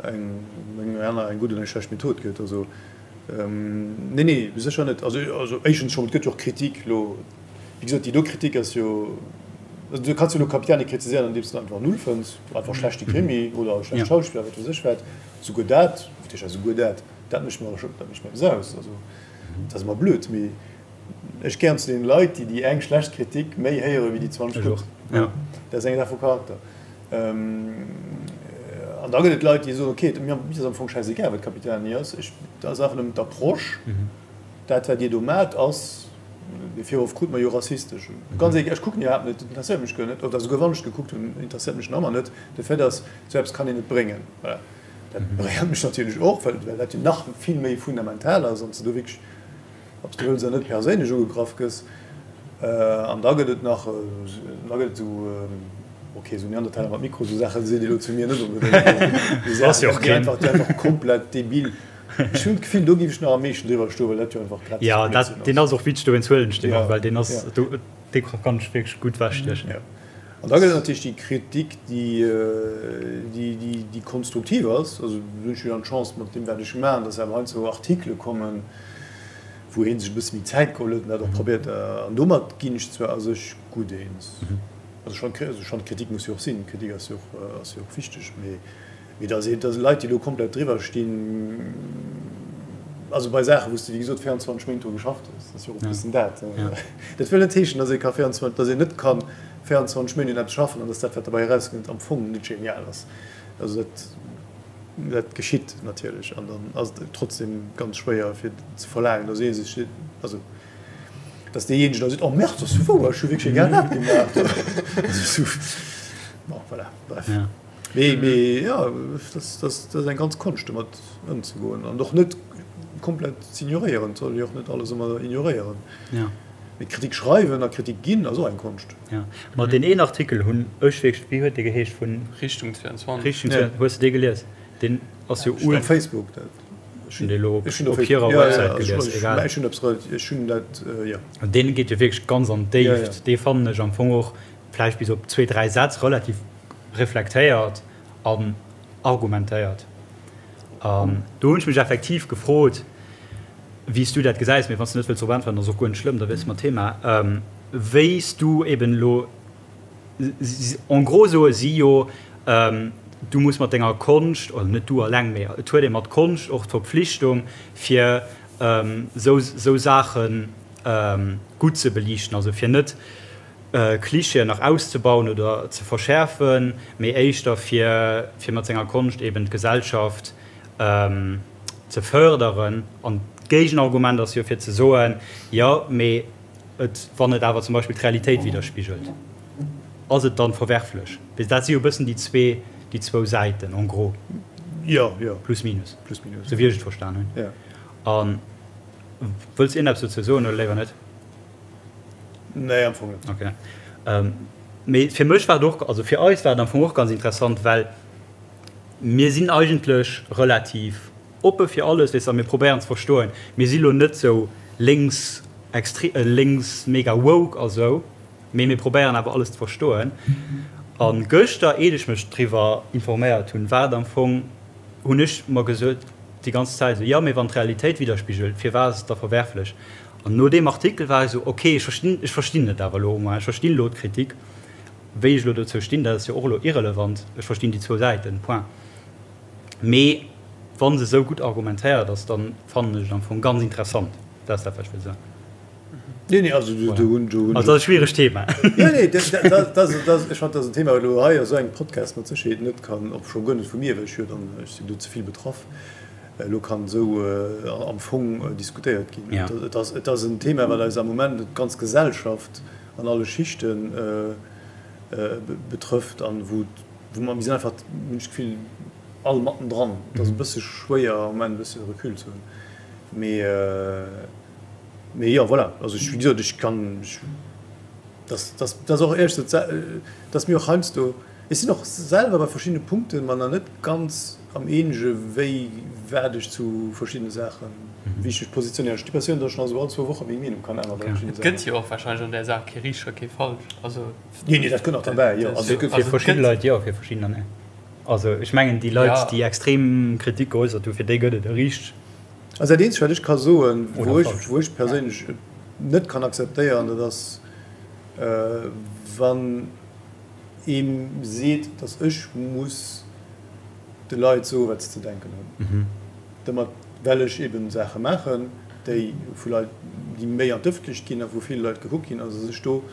eng aner, eng gutt oder eng schlecht Method gëtt. Also nee, nee, sécher net. Also also éischtens schonn, et gëtt jo och Kritik elo, wéi gesot, déi do Kritik ass jo, also du kanns jo elo Capitani kritiséieren, andeems de en einfach null fënns, einfach schlechte Krimi oder schlecht Schauspiller, wat weess ech wat. Souguer dat, wat heescht souguer dat, dat mécht mer, dat mécht mer eppes aus. Also dat ass ëmmer blöd, mee Ech gehéieren zu deene Leit, déi déi eng schlecht Kritik méi héiere wéi déi 20 gutt. Dat ass eng Saach vu Charakter. An da gëtt et Leit, déi soen, okay, mir ass am Fong schäisegal, wat Capitani ass, ech, dat ass einfach nëmmen d'Approche, dat wat Dir do maacht ass, dee Virworf krute mer jo, rassistesch. Ganz egal, ech kucken iwwerhaapt net, dat interesséiert mech guer net, oder souguer wann ech gekuckt hunn, interesséiert mech nach ëmmer net. De Fait ass, esou eppes kann een net bréngen. Voilà. Dat beréiert mech natierlech och, well dat jo nach vill méi fundamental ass an s de do wierklech, ob s de wëlls oder net, perséinlech ugegraff gëss. An da gëtt et nach, da gëtt et esou, ok, esou Neandertaler mat Mikro, esou Saache seet ee lo zu mir net onbedéngt. Déi Saachen, déi einfach, déi einfach komplett debil. Ech hunn d'Gefill, do géif ech nach am meeschten driwwer stoen, well dat jo einfach grässlech Blödsinn ass. Jo, deen ass och witzeg, dowéinst huelen ech deen och, well deen ass, dee kann ech wierklech gutt wechstiechen. An da gëtt et natierlech déi Kritik, déi, déi konstruktiv ass. Also do hunn ech jo dann d'Chance mat deem, wat ech maachen, dass awer heiansdo Artikele kommen, wou ee sech e bësse méi Zäit geholl huet an dat och probéiert. An domat ginn ech zwar a sech gutt eens. Also ech fannen, also ech fannen, Kritik muss jo och sinn. Kritik ass jo och, ass jo och wichteg. Mee, mee dass ee, dass Leit, déi elo komplett driwwer stinn, also bei Saachen, wou s de, wéi gesot, 24 Méint dru geschafft hues, dat ass jo och e bëssen dat. Dat wëll net heeschen, dass ee ka 24, dass een net ka 24 Méint un eppes schaffen an dass dat, wat derbäi erauskënnt, am Fong net genial ass. Also dat, dat geschitt natierlech an dann ass et trotzdem ganz schwéier fir ze verlaangen, dass ee sech, also dass deejéinegen da seet, oh merde, dat ass jo wouer, ech hu wierklech egal wat gemaach. Also esou, bon, voilà, bref. Mee, mee jo, dat ass eng ganz Konscht, domat ëmzegoen an och net komplett z'ignoréieren. Et soll ee jo och net alles ëmmer ignoréieren. Mee Kritik schreiwen a Kritik ginn ass och eng Konscht. Jo, ma deen een Artikel hunn ech wierklech, wéi huet dee geheescht, vun. Richtung 22. Richtung 22, hues de dee gelies? Deen ass jo ul. Op Facebook, dat. Ech hunn dee elo op hirer Websäit gelies, egal. Ech hunn eppes relativ, ech hunn dat, jo. Deen geet jo wierklech ganz an d'Déift. Dee fannen ech am Fong och, vläicht bis op zwee, dräi Sätz, relativ reflektéiert an argumentéiert. An do hunn ech mech effektiv gefrot, wéi s du dat gesäis, mee wann s du net wëlls drop äntweren, ass och guer net schlëmm, da wiesse mer d'Thema, wéi s du eben elo, en gros soe si jo, du muss mat denger Konscht, oder net du alleng, mee et huet ee mat Konscht och d'Verpflichtung, fir esou Saache gutt ze beliichten, also fir net Klischeeën nach auszebauen oder ze verschäerfen, mee éischter fir fir mat senger Konscht eben d'Gesellschaft ze fërderen. An d'Géigenargument ass jo fir ze soen, jo mee et wann et awer zum Beispill d'Realitéit widderspigelt, ass et dann verwerflech? Dat si jo e bëssen déi zwee déi zwou Säiten en gros. Jo, jo. Plus minus. Plus minus. Sou wéi ech et verstan hunn. Jo. A wëlls iergendeppes dozou soen oder léiwer net? Nee, am Fong net. Okay. Mee fir mech war et och, also fir eis war et am Fong och ganz interessant, well mir sinn eigentlech relativ oppe fir alles, weess de, a mir probéieren ze verstoen. Mir si lo net sou lénks extre-, lénks mega woke a sou, mee mir probéieren awer alles ze verstoen. A gëschter, eet ech mech driwwer informéiert hunn, war et am Fong, hunn ech mer gesot déi ganz Zäit esou, jo, mee wann d'Realitéit widderspigelt, firwat ass et da verwerflech? An no deem Artikel war ech esou, ok, ech verstinn, ech verstinn et awer elo au moins, ech verstinn elo d'Kritik. Wéi ech elo dozou stinn, dat ass jo och elo irrelevant, ech verstinn déi zwou Säiten, point. Mee wa se esou gutt argumentéiert ass, da fannen ech et am Fong ganz interessant. Dat ass dat, wat ech wëll soen. Nee, nee, also do hunn, do hunn. Also dat ass e schwieregt Thema. Jo, nee, dat, dat, dat, dat, ech fannen, dat ass en Thema, wat elo hei a sou engem Podcast mat Sécherheet net kann, och scho guer net vu mir, well ech jo dann, ech sinn do ze vill betraff. Elo kann esou am Fong diskutéiert ginn. Et ass, et ass en Thema, wat eis am Moment d'ganz Gesellschaft an alle Schichte betrëfft an wou, wou mer, mir sinn einfach, hunn ech d'Gefill, all mattendran. Et ass e bësse schwéier am Moment e bësse Recul ze hunn. Mee, mee jo, voilà. Also ech, wéi gesot, ech kann, ech, dass, dass, dass och éierlech gesot, dass mir och heiansdo, ech sinn och selwer bei verschiddene Punkte mer nach net ganz, Am eenege wéi wat ech zu verschiddene Saachen, wéi ech mech positionéieren. Ech hunn d'Impressioun, datt ech nach esou all zwou Woche meng Meenung kann änneren bei verschiddene Saachen. Et gëtt jo och warscheinlech an där Saach kee richteg a kee falsch. Also. Nee, nee, dat kënnt nach derbäi, jo. Also et gëtt. Fir verschidde Leit jo, fir verschiddener net. Also ech mengen déi Leit, déi extrem Kritik geäussert hunn, fir déi gëtt et e richteg. Also dat eenzegt wat ech ka soen, wou ech, wou ech perséinlech et net kann akzeptéieren, dat ass wann ee seet, datt ech muss de Leit soen, wat se ze denken hunn. Domat, well ech eben Saache maachen, déi vu Leit, déi méi an d'Ëffentlecht ginn a vu ville Leit gekuckt ginn, also sech do,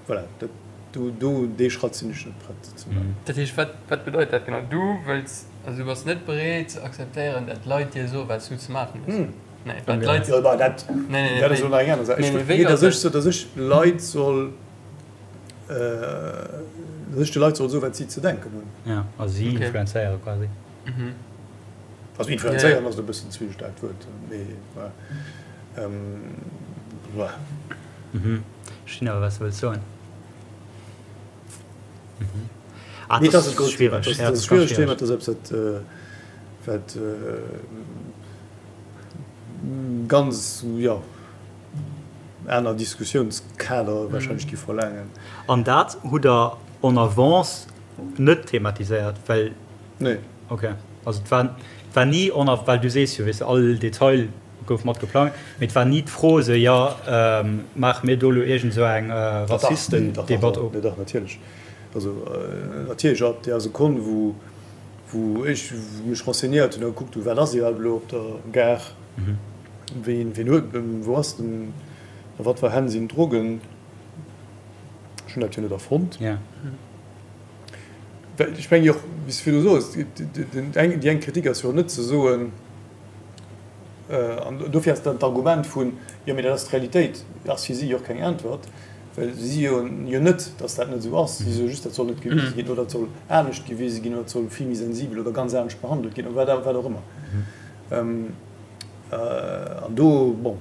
voilà, dat. Do, do, dee Schratt sinn ech net prett ze maachen. Dat heescht, wat, wat bedeit dat genau? Du wëlls, also du bass net breet ze akzeptéieren, dat Leit dir soen, wat s du ze maachen hues? Nee, wat d'Leit. Jo, bah, dat, Nee, nee, dat ass wéi? elo nach eng aner Saach. Nee, Ech, nee, wéi nee, ass datt ech dat? so, datt ech Leit soll, datt ech de Leit soll soen, wat si ze denken hunn. Ja, also si Okay. influenzéiere quasi. Mhm. Also Ja, ja. influenzéieren ass elo e bëssen ze vill staarkt Wuert, mee voilà. Voilà. Mhm. Verstinn awer, wat s de wëlls soen. Mhm. Ah, Nee, dat dat ass ass e grousst Thema. schwiereg. Dat Ja, ass dat e ass ganz schwieregt Thema. schwiereg. Dat ass eppes, wat, wat ganz, jo, aner Diskussiounskader warscheinlech gi verlaangen. An dat hutt Der en avance net thematiséiert, well. Nee. Okay. Also et war, et war ni en av-, well du sees jo, weess de, all Detail gouf mat geplangt, mee et war ni d'Fro esou, jo, maache mir do elo iergend esou eng Rassistendebatt op? Nee, dach, natierlech. Also natierlech ab där Sekonn, wou, wou ech mech renseignéiert hunn a gekuckt hunn, wat ass iwwerhaapt elo op der Gare, ween, ween huet, wou ass den, a wat fir Hänn sinn d'Drogen, ech hunn dat jo net erfonnt. Well ech mengen jo och, wéi s de virdu soos, déi eng Kritik ass jo och net ze soen, an dofir ass dann d'Argument vun, jo mee dat ass d'Realitéit, ass fir si jo och keng Äntwert, well si si jo jo net, datt dat net esou ass. Si soe just, dat soll net gewise ginn oder dat soll anescht gewise ginn oder dat soll vill méi sensibel oder ganz anescht behandelt ginn oder wat och ëmmer. An do, bon.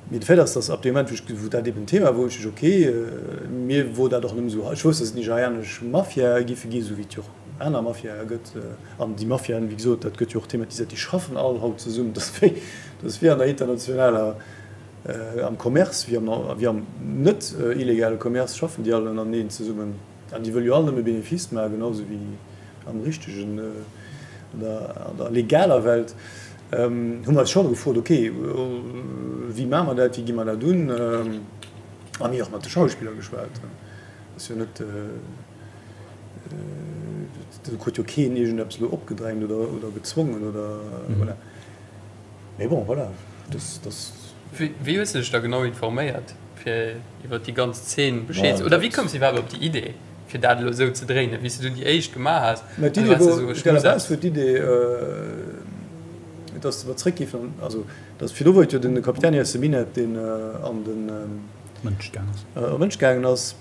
Mee de Fait ass, dass ab deem Moment, wou ech, wou dat eben Thema wor, hunn ech gesot, okay, mir wor dat och nëmme esou, ech wousst, dass et nigerianesch Mafiae giffe ginn, esou wéi et jo och aner Mafiae gëtt. An déi Mafiaen, wéi gesot, dat gëtt jo och thematiséiert, déi schaffen all haut zesummen. Dat ass wéi, dat ass wéi an der internationaler, am Commerce, wéi am, wéi am net illegale Commerce schaffen déi all ënnereneen zesummen. An déi wëlle jo all nëmme Benefice maachen, genau esou wéi am richtegen, an der, an der legaler Welt. Hu mer eis scho gefrot, ok, wéi maache mer dat, wéi gi mer dat un? A mir och mat de Schauspiller geschwat. Ass jo net, do krut jo keen iergendeppes elo opgedrängt oder, oder gezwongen oder voilà. Mee bon, voilà, dat, dat. Wéi hues de dech da genau informéiert, fir iwwer déi ganz Zeen Bescheed ze. Oder wéi koums de iwwerhaapt op déi Idee, fir dat elo esou ze dréinen, wéi s de du déi éischt gemaach has? Mä d'Idee wor, à la base wor d'Idee, dass mer zréck géifen, also dass virdu wor et jo den Capitani aus dem Minett, deen an den Mënsch gaang ass. An Mënsch gaangen ass.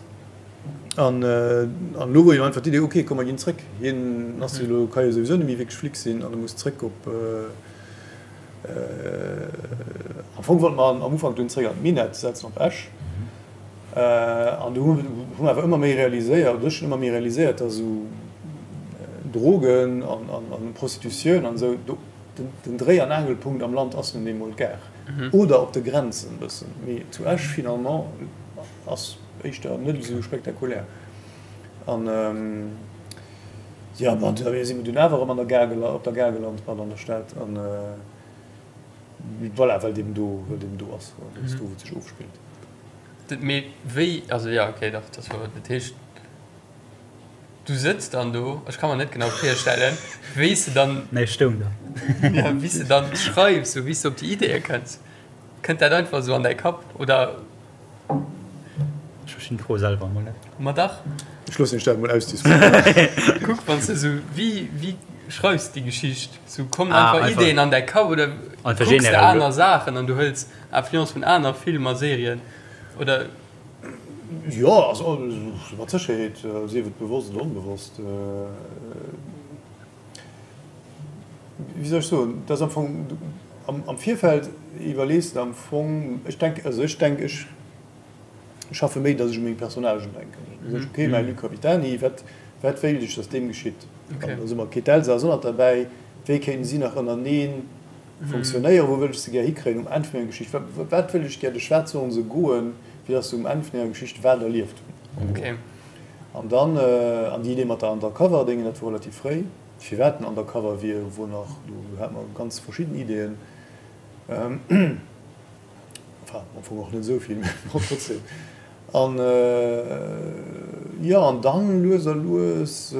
An elo wor jo einfach d'Idee, ok, komm mer ginn zréck. Hien ass jo elo, ka jo souwisou net méi wierklech Flic sinn an e muss zréck op. Am Fong wollte mer am Ufank dunn zréck an d'Minett setzen, op Esch. An du hu mer awer ëmmer méi realiséiert, oder ech hunn ëmmer méi realiséiert, datt esou Drogen an Prostitutioun an esou, do den Dréi an Aangelpunkt am Land ass nun eemol d'Gare. Oder op de Grenzen e bëssen. Mee zu Esch finalement ass éischter net esou spektakulär. An jo, bon, da si mer dunn awer erëm an der Gare, op der Gare gelant, pardon, an der Stad. An voilà, well et eben do, well et eben do ass, dat ass do, wou et sech ofspillt. Mee wéi, also jo, okay, dach, dat war, dat heescht, du sëtz dann do, ech ka mer net genau virstellen, wéi s de dann. Nee, ech stoung do. Ja, wéi s de dann schreifs, sou wéi s de op déi Ideeë kënns. Kënnt dat einfach esou an däi Kapp, oder? Ech verstinn d'Fro selwer emol net. Ma dach. Ech loossen iech dat emol ausdiskutéieren. Kuck, wann s de esou, wéi, wéi schreifs de déi Geschicht? Sou kommen einfach Ideeën an däi Kapp, oder kucks de aner Saachen an du hëls Influence vun aner Filmer, Serien oder? Jo, also mat Sécherheet, sief et bewosst oder onbewosst. Wéi soll ech soen, et ass am Fong, am Virfeld iwwerlees de am Fong, ech denk, also ech denk, ech schaffe méi, datt ech u meng Personnagen denken. Da soen ech, okay, mäi Luc Capitani, wat, wat wéilt ech, datt deem geschitt? An da soe mer, okay, d'Elsa ass och nach derbäi, wéi kéinten si nach ënnerteneen funktionéieren, wou wëll ech se gär hikréien um Enn vun enger Geschicht, wat, wat wëll ech gär, duerch wat sollen se goen, fir datt se um Enn vun enger Geschicht wat erlieft hunn. An dann, an déi Idee mat der Undercover-Déngen, dat wor relativ fréi. Firwat den Undercover wier, wor nach, do hate mer ganz verschidden Ideeën. Enfin, am Fong och net esou vill, mä bon, trotzdem. An, jo, an dann lues a lues,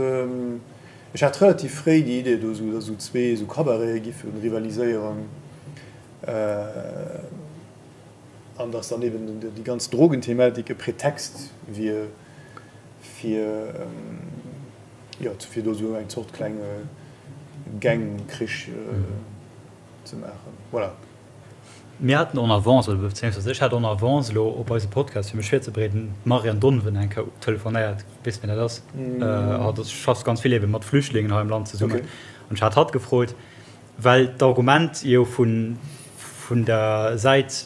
ech hat relativ fréi déi Idee do, esou, datt esou zwee esou Cabarete giffe rivaliséieren. An datt dann eben déi ganz Drogenthematik e Pretext wier. Fir, jo, fir do esou eng Zort klenge Gangkrich ze maachen. Voilà. Mir haten en avance, oder bezéiungsweis ech hat en avance elo op eise Podcast, fir mech virzebereeden, d'Marianne Donven eng Kéier telefonéiert. Weess wien dat ass? Hatt ass, schafft ganz vill ebe mat Flüchtlingen hei am Land zesummen. An ech hat hatt gefrot, well d'Argument jo vun, vun der Säit,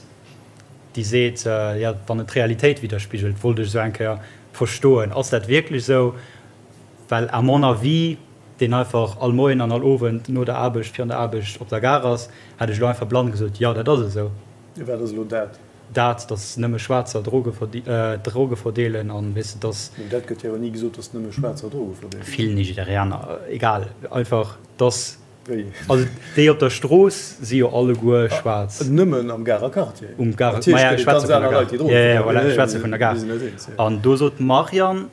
déi seet, jo, wann et d'Realitéit widderspigelt, wollt ech esou eng Kéier verstoen, ass dat wierklech esou? Well à mon avis, deen einfach all Moien an all Owend no der Aarbecht, virun der Aarbecht op der Gare ass, hätt ech elo einfach blann gesot, jo, dat ass esou. Wat ass elo dat? Dat, datt nëmme Schwaarzer Droge Droge verdeelen an, weess de, datt. Mee dat gëtt jo awer ni gesot, datt nëmme Schwaarzer Droge verdeelen. Vill Nigerianer, egal, einfach datt. Wéi? Also déi op der Strooss si jo alleguer schwaarz. Nëmmen am Garer Quartier. Um Garer, maja, ech schwätze vun der Gare. Jo, jo, voilà, ech schwätze vun der Gare. An do sot d'Marianne,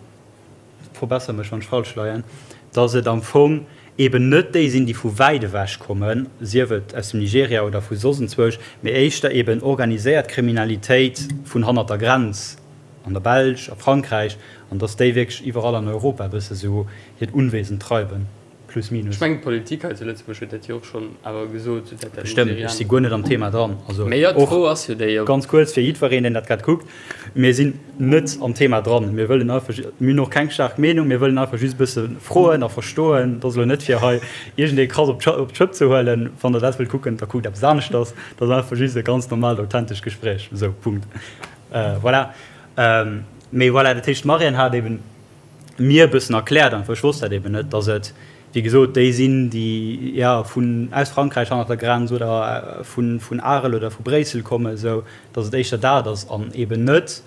verbesser mech wann ech falsch leien, dass et am Fong eben net déi sinn, déi vu wäit ewech kommen, sief et aus dem Nigeria oder vu soss enzwousch, mee éischter eben organiséiert Kriminalitéit vun hannert der Grenz, an der Belsch, a Frankräich, an dass déi wierklech iwwerall an Europa e bësse sou hiert Unwesen treiben. Plus minus. Ech mengen d'Politik hei zu Lëtzebuerg huet dat jo och schonn awer gesot, sou dat dat Bestëmmt, ech si guer net am Thema dran. Also Mee jo, d'Fro ass jo déi, ob. Ganz kuerz fir jiddwereen, deen dat grad kuckt, Mir sinn net am Thema dran. Mir wëllen einfach, mir hunn och keng staark Meenung, mir wëllen einfach just e bësse froen a verstoen. Dat ass elo net fir hei iergendee krass op d'Schëpp ze huelen. Wann Der dat wëllt kucken, da kuckt eppes aneschters. Dat ass einfach just e ganz normaalt, authentescht Gespréich. Esou, Punkt. Voilà. Mee voilà, dat heescht, d'Marianne hat eben mir e bëssen erkläert, einfach, ech wosst dat eben net, dass et, wéi gesot, déi sinn, déi, jo, vun, aus Frankräich hannert der Grenz oder vun, vun Arel oder vu Bréissel kommen, esou dass et éischter dat ass an eben net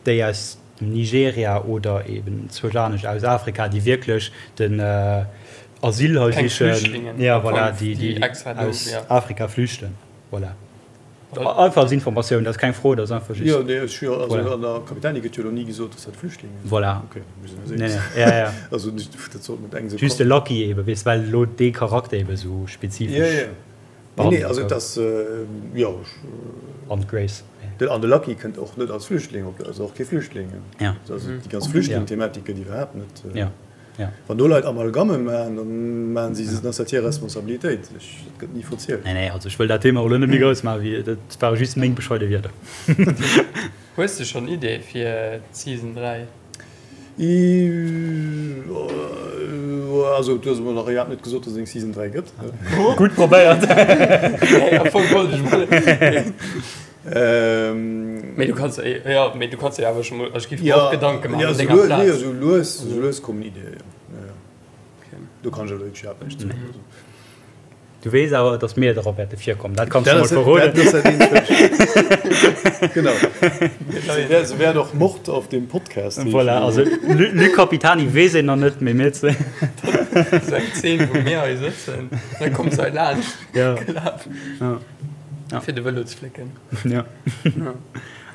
déi aus dem Nigeria oder eben zwousch anescht aus Afrika, déi wierklech den Asyl hei Keng sichen, Flüchtlingen jo, am Fong, voilà, déi, déi déi extra do, aus jo. Afrika flüchten, voilà. Einfach als Informatioun, dat ass keng Fro, dat ass einfach just. Jo, nee, ech jo, also an der Capitani gëtt jo elo ni gesot, dass dat Flüchtlinge sinn. Voilà. Okay, mir sinn eis eens. Nee, nee, ja, ja. Also dat sollt net eng esou. Just de Lucky ebe, weess, well elo dee Charakter ebe esou spezifesch. Ja, ja. Nee, nee, also et ass, jo, ech. An d'Grace. An de Lucky kënnt och net als Flüchtling op, ass och kee Flüchtling. Ja. Also déi ganz Flüchtling-Thematik gëtt iwwerhaapt net. Ja. Ja. Wann do Leit Amalgamme maachen, dann maachen si, dann ass dat hir Responsabilitéit. Ech, dat gëtt ni verzielt. Nee, nee, also ech wëll dat Thema och elo net méi grouss maachen, wéi, dat ware just meng bescheide Wierder. Hues de schonn Iddie fir d'Season 3? Also du hues emol nach iwwerhaapt net gesot, dass et eng Season 3 gëtt. Gutt probéiert. Nee, am Fong wollt ech mol. Mee du kanns jo, mee du kanns dir awer scho mol, ech géif mer och Gedanke maachen op denger Plaz. Jo, esou lues, esou lues kommen Iddien, jo. Do kann ech awer wierklech iwwerhaapt näischt soen. Du weess awer, datt mir drop wäerte virkommen, dat kanns du mol verroden. Dat ass dat eenzegt, wat ech. Genau. Se wäert och Mord auf dem Podcast heeschen. Voilà, also Luc Capitani weess een nach net, mee mir zwee. Dat ass eng Zeen, wou mir hei sëtzen, da kommt se hei laanscht gelaf. Ja. Fir de Vëlo ze flécken. Ja.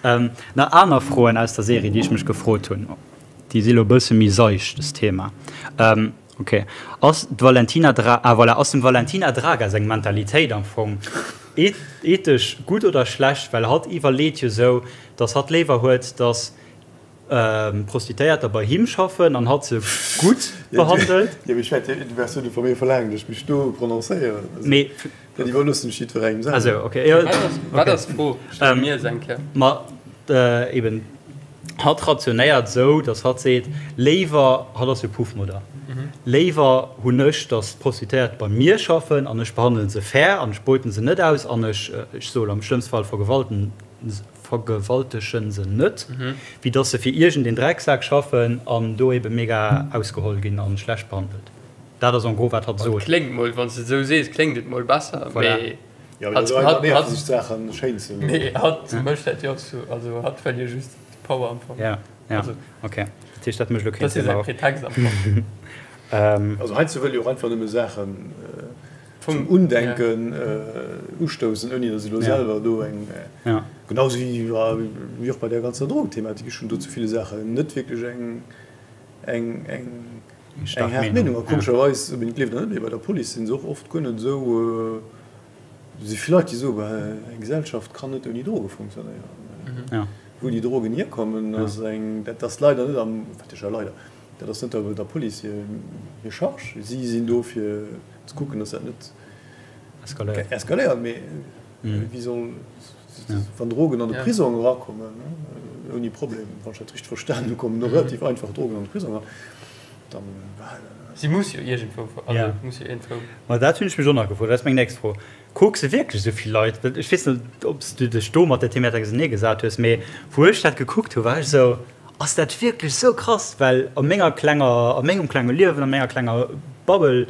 Ähm, nach aner Froen aus der Serie, déi ech mech gefrot hunn. Déi si lo e bësse méi seicht, dës Thema. Ähm, okay. Ass d'Valentina Dra-, ah voilà, ass dem Valentina Draga seng Mentalitéit am Fong ethesch gutt oder schlecht? Well hatt iwwerleet jo sou, dass hatt léiwer huet, dass Prostituéierter bei him schaffen an hatt se gutt behandelt. Jo, mee ech wäert, du wäers jo net vu mir verlaangen, dass ech mech do prononcéieren. Mee. Dat iwwerloossen ech jiddwerengem selwer. Also, okay, jo. Wat ass d'Fro? Stell mir se eng Kéier. Ma eben, hatt rationéiert esou, dass hatt seet, léiwer, hatt ass jo Puffmodder, léiwer hunn ech, dass d'Prostituéiert bei mir schaffen an ech behandele se fair an ech beuten se net aus an ech, ech soe am schlëmmste Fall vergewalten, vergewaltegen se net, wéi dass se fir iergend een Drecksak schaffen an do ebe mega ausgeholl ginn an schlecht behandelt. Dat ass en gros wat hatt sot. Kléngt mol, wann s de et esou sees, kléngt et mol besser, Voilà. mee Jo, mee hatt, dat ass einfach hatt, nervt, hatt, sech d'Saachen schéin ze mee hatt mécht dat jo och sou, also hatt wëll jo just Power am Fong. Ja, ja, Also, okay. Dat heescht, dat mécht elo dat keen ass jo Sënn, säi awer. Pretext am Fong. Also heiansdo wëll jo och einfach nëmme Saachen Vum zum Undenken ustoussen, ouni datt se elo selwer do eng, genau sou wéi och bei där ganzer Drogenthematik, ech hunn do zu ville Saachen net wierklech eng eng eng haart Meenung. A komescherweis, ob een et gleeft oder net, mee bei der Police si se och oft guer net esou, do si vill Leit, déi soen, bah, eng Gesellschaft kann net ouni Droge funktionéieren. Wou déi Drogen hierkommen, ass eng, dat ass leider net am, wat heescht leider, dat ass net der Police hir Charge. Si sinn do fir ze kucken, datt dat net eskaléiert. Mee wéi soll, wann Drogen an de Prisong erakommen, ouni Problem, wann ech dat richteg verstanen hu, kommen do relativ einfach Drogen an de Prisong eran, dann. Si muss jo iergendwou, also muss jo iergendwou. Ma dat hunn ech mech och nach gefrot, dat ass meng nächst Fro. Kucks de wierklech esou vill Leit? Well ech weess net, ob s du dech do mat der Thematik ausenee gesat hues, mee wou ech dat gekuckt hu war ech esou, Ass dat wierklech esou krass? Well a menger klenger, a mengem klenge Liewen, a menger klenger Bubble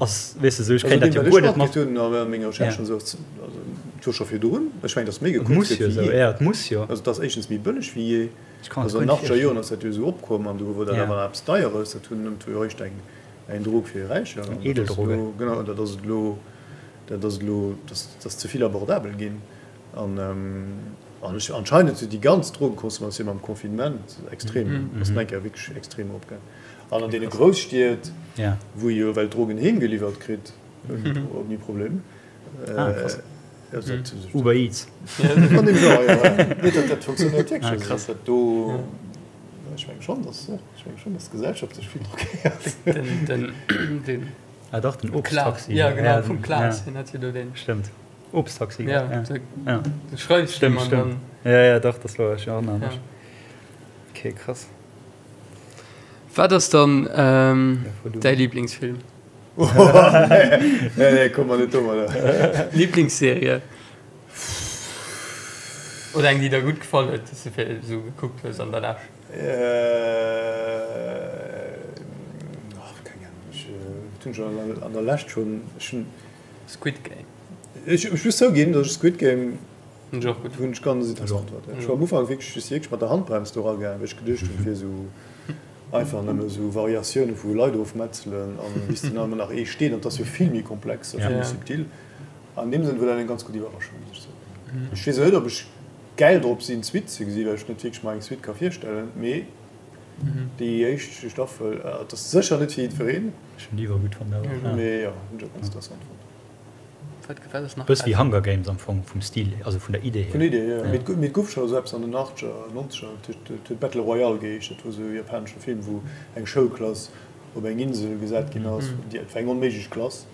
ass, weess de, esou, ech kréien dat jo guer net mat. Also deem, wat ech matkritt hunn a menger Recherche an esou, ass, also et wor scho virdrun, ech mengen, datt méi Et gekuckt muss gëtt jo wéi esou, jee. jo, et muss jo. Also et ass éischtens méi bëlleg wéi jee. Ech kann et Also guer an net den achtzeger virstellen. Joren ass dat jo esou opkomm an do wor dat Ja. awer nach eppes Deieres. Dat hunn, dat wor jo eréischt eng, eng Drog fir Räicher. Eng An dat ass Edeldroge. elo, genau, an dat ass et elo. Dat ass elo, dat ass ze vill abordabel ginn. An ech, anscheinend huet déi ganz Drogenconsommatioun mam Confinement extrem, ass nach eng Kéier wierklech extrem eropgaangen. An an deene Grousstied, wou ee jo well d'Drogen heem geliwwert kritt, ouni Problem. Uber Eats. An deem Genre, jo. Nee, dat funktionéiert wierklech. Also dat do, ech menge schonn, dass, ech menge schonn, dass d'Gesellschaft sech vill drogéiert. Ah dach, den Obsttaxi. Ja, genau, vum Klaas, hien hat jo do deen. Stëmmt, Obsttaxi. Ja, ja. Du schreifs Stëmmt, stëmmt. Ja, ja, dach, dat war, ech erënnere mech. Ok, krass. Wat ass dann däi Liblingsfilm? Nee, nee, komm mer net domadder. Liblingsserie? Oder eng, déi der gutt gefall huet, déi s de fir esou gekuckt hues an der Lescht? Keng Ahnung, ech hunn schon an der Lescht schon, ech hunn. Squid Game. Ech muss zouginn, datt ech Squid Game hunn ech och gutt hunn ech ganz interessant fonnt. Ech war am Ufank wierklech, ech si wierklech mat der Handbrems do eragaangen, well ech geduecht hunn, et wier esou einfach nëmme esou Variatioune vu Leit ofmetzelen an bis dann ëmmer nach ee steet. An et ass jo vill méi komplex a vill méi subtil. An deem Sënn war dat eng ganz gutt Iwwerraschung, muss ech soen. Ech weess och net, ob ech gäil drop sinn d'Suite ze gesinn, well ech net wierklech mer eng Suite ka virstellen, mee déi éischt Staffel, et ass sécher net fir jiddwereen. Ech hunn déi iwwer gutt fonnt awer. Mee jo, hunn ech och ganz interessant fonnt. Wat ass nach Bëss wéi Hunger Games am Fong, vum Stil, also vun der Idee hier. Vun der Idee hier, jo. Mee et gouf scho esou eppes an den Achtzeger, Nonzeger, et huet Battle Royale geheescht, dat wor esou e japanesche Film, wou eng Schoulklass op eng Insel gesat ginn ass, déi, et war eng onméiglech Klass,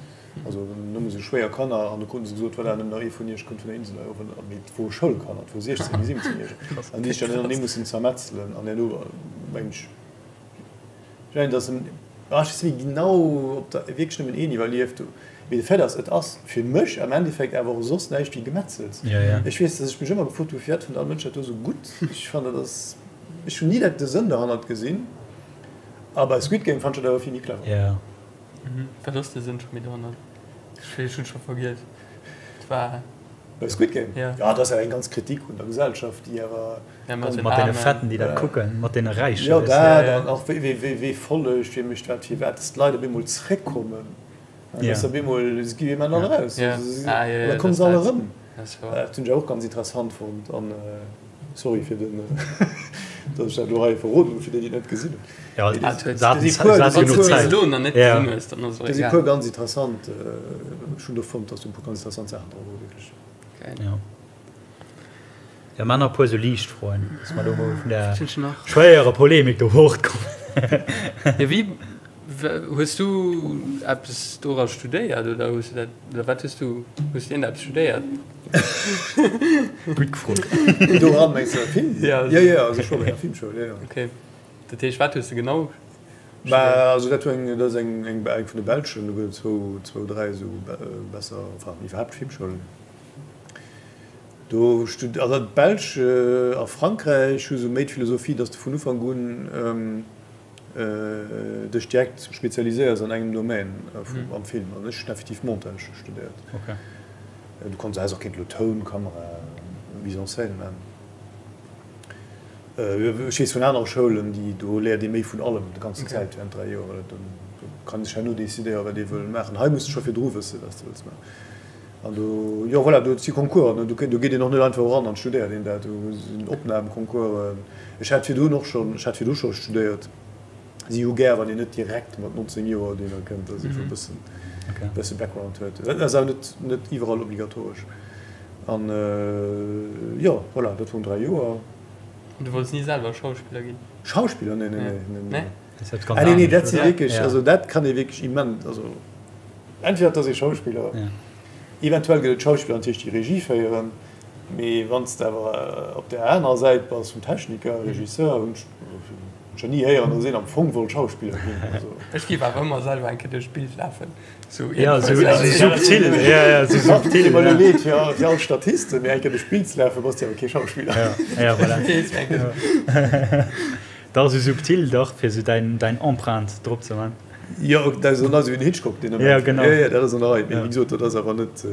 Also nëmme sou schwéier Kanner, an du kruten se gesot, voilà, nëmmen nach ee vun iech kënnt vun der Insel hei of. An mee et wore Schoulkanner, et wore 16 bis 17 Järeger, an déi sech dann ënnertenee mussen zermetzelen. An herno mengen ech, ech mengen, datt en, ah, ech weess net méi genau, ob der wierklech nëmmen een iwwerlieft hu, mee de Fait ass, et ass fir mech am Endeffekt awer och soss näischt wéi Gemetzels. Ech weess, datt ech mech ëmmer gefrot hu, firwat fënnt all Mënsch dat do sou gutt? Ech fannen, dat ass, ech hunn ni dat de Sënn derhannert gesinn. A bei Squid Game fannt ech dat awer vill méi clever. Wat ass de Sënn scho méi dohannert? Ech hunn scho vergiess. Et war. Bei Squid Game? Ja. Ja, dat ass awer eng ganz Kritik un der Gesellschaft, déi awer. Ja, mat den Mat deene Fetten, déi dat kucken, mat deene Räichen. Jo, dat an och wéi, wéi, wee follegt, wee mécht wat, firwat, dass d'Leit op eemol zréckkommen. Ja. Dass op eemol, se gi ëmmer alle raus. Ja. Ah, ja, ja. An da komme se all erëm. Dat hunn ech awer och ganz interessant fonnt. An sorry fir den, datt ech dat elo hei verroden hunn, fir déi, déi et net gesinn hunn. Ja, do si puer ganz interessant, ech hunn do fonnt, datt do e puer ganz interessant Saachen dra wore wierklech. Ja. Ja, mar nach e puer esou liicht Froen, datt mer do mol vun der schwéierer Polemik do fortkommen. Ja, wéi hues du eppes dora studéiert oder hues du dat, oder wat hues du, hues du iergendeppes studéiert? Gutt gefrot. Doran mengs du Film? Ja, ja, ja, also ech war bei enger Filmschoul, ja, ja. Okay. Dat heescht, wat hues de genau studéiert? Bah, also dat war eng, dat ass eng, eng vun de belschen, do gëtt et zwou, zwou, dräi esou besser, enfin iwwerhaapt Filmschoulen. Do stud, also d'Belsch a Frankräich hu sou méi d'Philosophie, datt s de vun Ufank un dech direkt spezialiséiers an engem Domaine am Film. An ech hunn effektiv Montage studéiert. Du kanns, häss och kéint elo Toun, Kamera, Mise en scène man. Ech weess vun anere Schoulen, déi do léiert ee méi vun allem déi ganzen Zäit während 3 Joer. Do kann ee sech herno decidéieren, wat ee wëll maachen. Hei muss de scho virdru wëssen, wat s de wëlls maachen. An do, jo voilà, do si Concoursen. Do geet een och net einfach eran an studéiert een dat. Do sinn Opnamconcoursen. Ech hat virdrun och schonn, ech hat virdru scho studéiert. Si hu gär, wann een net direkt mat 19 Joer dohinner kënnt, dass ee scho e bëssen, bësse Background huet. Dat ass awer net, net iwwerall obligatoresch. An jo, voilà, dat woren 3 Joer. An du wollts ni selwer Schauspiller ginn? Schauspiller? Nee, nee, nee, nee. Ah nee, nee, dat si wierklech, also dat kann ee wierklech immens, also entweder et ass ee Schauspiller, eventuell gëtt et Schauspiller natierlech, déi Regie féieren, mee wann s de awer op där anerer Säit bass vum Techniker, Regisseur, hunn ech nach ni héieren, datt een am Fong wollt Schauspiller ginn. Also. Ech géif awer ëmmer selwer eng Kéier duerch d'Bild lafen. Sou ja, sou, sou subtil. Ja, ja, sou subtil. Deet mer elo leed fir all, fir all Statisten, mee eng Kéier duerch d'Bild ze lafen, bass de awer kee Schauspiller. Ja, ja, voilà. Dach, sou subtil, dach, fir sou däin, däin Empreinte drop ze man. Jo, dat ass esou wéi den Hitchcock deen Ament. Ja, genau. Ja, ja, dat ass an der Rei. Mee wéi gesot, dat ass awer net.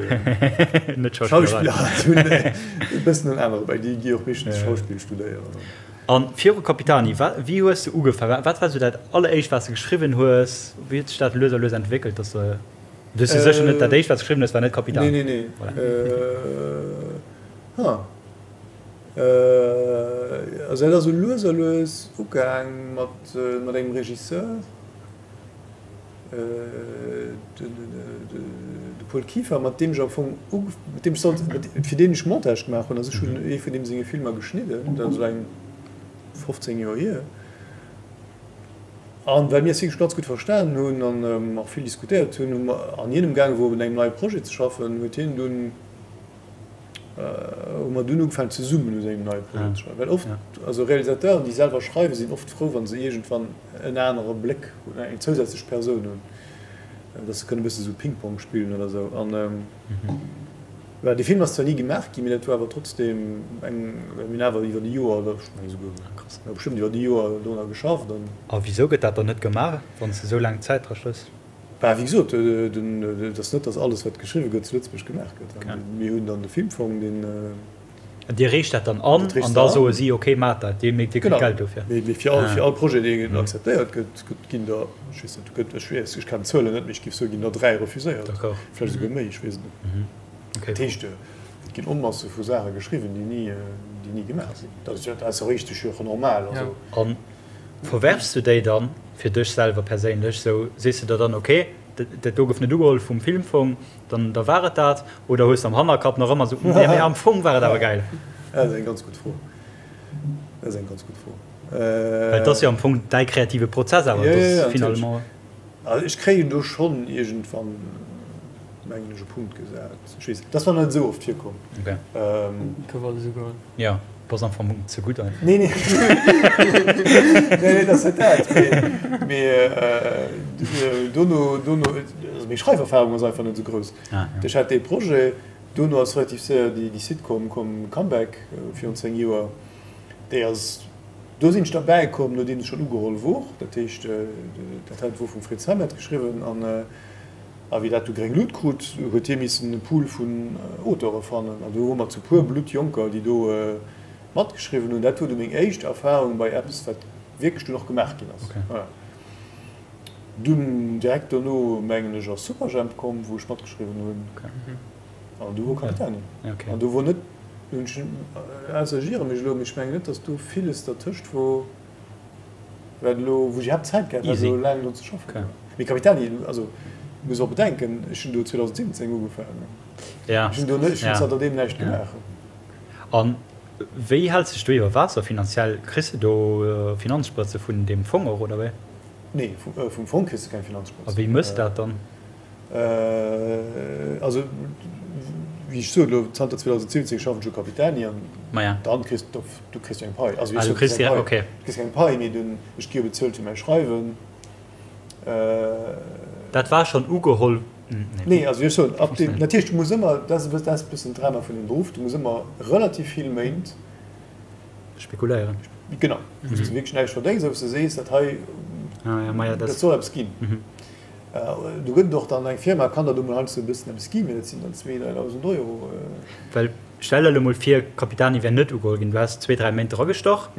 Net Schauspillerei. Schauspiller hunn e bëssen en anere, well déi gi och meeschtens Schauspill studéieren. A viru Capitani, wa, wéi hues de ugefaangen? Wat war sou dat alleréischt, wat s de geschriwwen hues? Wéi huet sech dat lues a lues entwéckelt, dass de, du hues jo sécher net, dat éischt, wat s de geschriwwen hues, war net Capitani? Nee, nee, nee. Voilà. Ha. Also dat ass sou lues a lues ugaang mat, mat engem Regisseur. De Paul Kieffer, mat deem ech am Fong mat deem ech sollt, fir deen ech Montage gemaach hunn. Also ech hunn ee vun deem senge Filmer geschnidden, dat ass elo eng 15 Joer hier. An well mir eis wierklech ganz gutt verstanen hunn an och vill diskutéiert hunn, hu mer, an hien emgaange wor un engem neie Projet ze schaffen, huet hien dunn, hu mer dunn ugefaangen zesummen u sengem neie Projet ze schreiwen. Well oft, also Realisateuren, déi selwer schreiwen, sinn oft frou, wa se iergendwann en anere Bléck hunn, eng zousätzlech Persoun hunn, dass se kënnen e bësse sou Ping-Pong spillen oder sou. An voilà, dee Film ass zwar ni gemaach ginn, mee dat war awer trotzdeem eng, well mir hunn awer iwwer e Joer oder ech menge souguer, jo bestëmmt iwwer e Joer dorunner geschafft an. A wisou gëtt dat dann net gemaach, wann s de sou laang Zäit dra stöss? Bah, wéi gesot, et ass net, datt alles, wat geschriwwe gëtt, zu Lëtzebuerg gemaach gëtt. Mir hunn dann de Filmfong, deen. Dir reecht dat dann an, an da soe si, okay, maacht dat, dir kritt Geld dofir. Genau. Mee fir all Projet, deen akzeptéiert gëtt, ginn der, ech weess net, gëtt, ech weess, ech kennen d'Zuelen net, mee ech géif soen, ginn der 3 refuséiert. D'accord. Vläicht esouguer méi, ech weess et net. Dat heescht, et ginn Onmasse vu Saache geschriwwen, déi ni, déi ni gemaach sinn. Dat ass jo richteg, jo och normal. Also. Verwerfs du déi dann fir dech selwer perséinlech? Sou sees du der dann, ok, dat do gouf net ugeholl vum Filmfong, dann da war et dat? Oder hues de am Hannerkapp nach ëmmer sou, nee mee am Fong war et awer gäil? Dat ass eng ganz gutt Fro. Dat ass eng ganz gutt Fro. Well et ass jo am Fong däi kreative Prozess awer, et ass finalement. Also ech kréien do schonn iergendwann, mengen ech, e Punkt gesat. Ech weess, dat ass nach net esou oft virkomm. Ok. Gouf alles ugeholl. Jo, bass am Fong ze gutt einfach. Nee, nee. Nee, nee, dat ass net dat. Mee, mee dono, dono, also meng Schreiferfahrung ass einfach net esou grouss. Ah, ja. Ech hat dee Projet, dono ass relativ séier déi, déi Sitcom komm, Comeback, virun 10 Joer. Déi ass, do sinn ech derbäi komm, nodeem se schonn ugeholl wor. Dat heescht, dat hat wor vum Fritz Hamet geschriwwen an a wéi dat du gréng Lut krut, huet hie missen e Pool vun Auteure fannen an do wore mer zu puer Bluttjonker, déi do matgeschriwwen hunn. Dat wor du meng éischt Erfahrung bei eppes, wat wierklech dunn och gemaach ginn ass. Voilà. Dunn direkt dono, mengen ech, ass Superjhemp komm, wou ech matgeschriwwen hunn. An du wor Capitani. An do wor net, hunn ech, ausser ech iere mech elo, mee ech mengen net, datt do villes dertëscht wor, wat elo, wou ech iwwerhaapt Zäit gehat hätt, elo laang drun ze schaffen. Mee Capitani, also muss och bedenken, ech hunn do 2017 ugefaangen. Ech hunn do net, ech hunn zanter deem näischt gemaach. A wéi häls dech do iwwer Waasser finanziell? Kriss de do Finanzsprëtze vun deem Fong och, oder wéi? Nee, vum Fong kriss de keng Finanzsprëtz. A wéi mëss dat dann? Also, wéi ech sot, elo zanter 2017 schaffen ech u Capitani an dann kriss du, du kriss jo eng Pai. Also, du kriss direkt, okay. Du kriss keng Pai, mee du, ech gi jo bezuelt fir mäi Schreiwen. Dat war schonn ugeholl? Nee, also ech soen, ab deem, natierlech, du muss ëmmer, dat ass e bëssen d'Drama vun deem Beruff, du muss ëmmer relativ vill Méint. Spekuléieren. Genau, wou s de wierklech näischt verdéngs a wou s de sees, dat hei, dat soll eppes ginn. Do gëtt et och dann eng Firma, kann der do mol heiansdo e bëssen eppes ginn, mee dat sinn dann 2.000, 3.000 Euro. Well stell der elo mol vir, Capitani wär net ugeholl ginn, du häss zwee, dräi Méint dragestach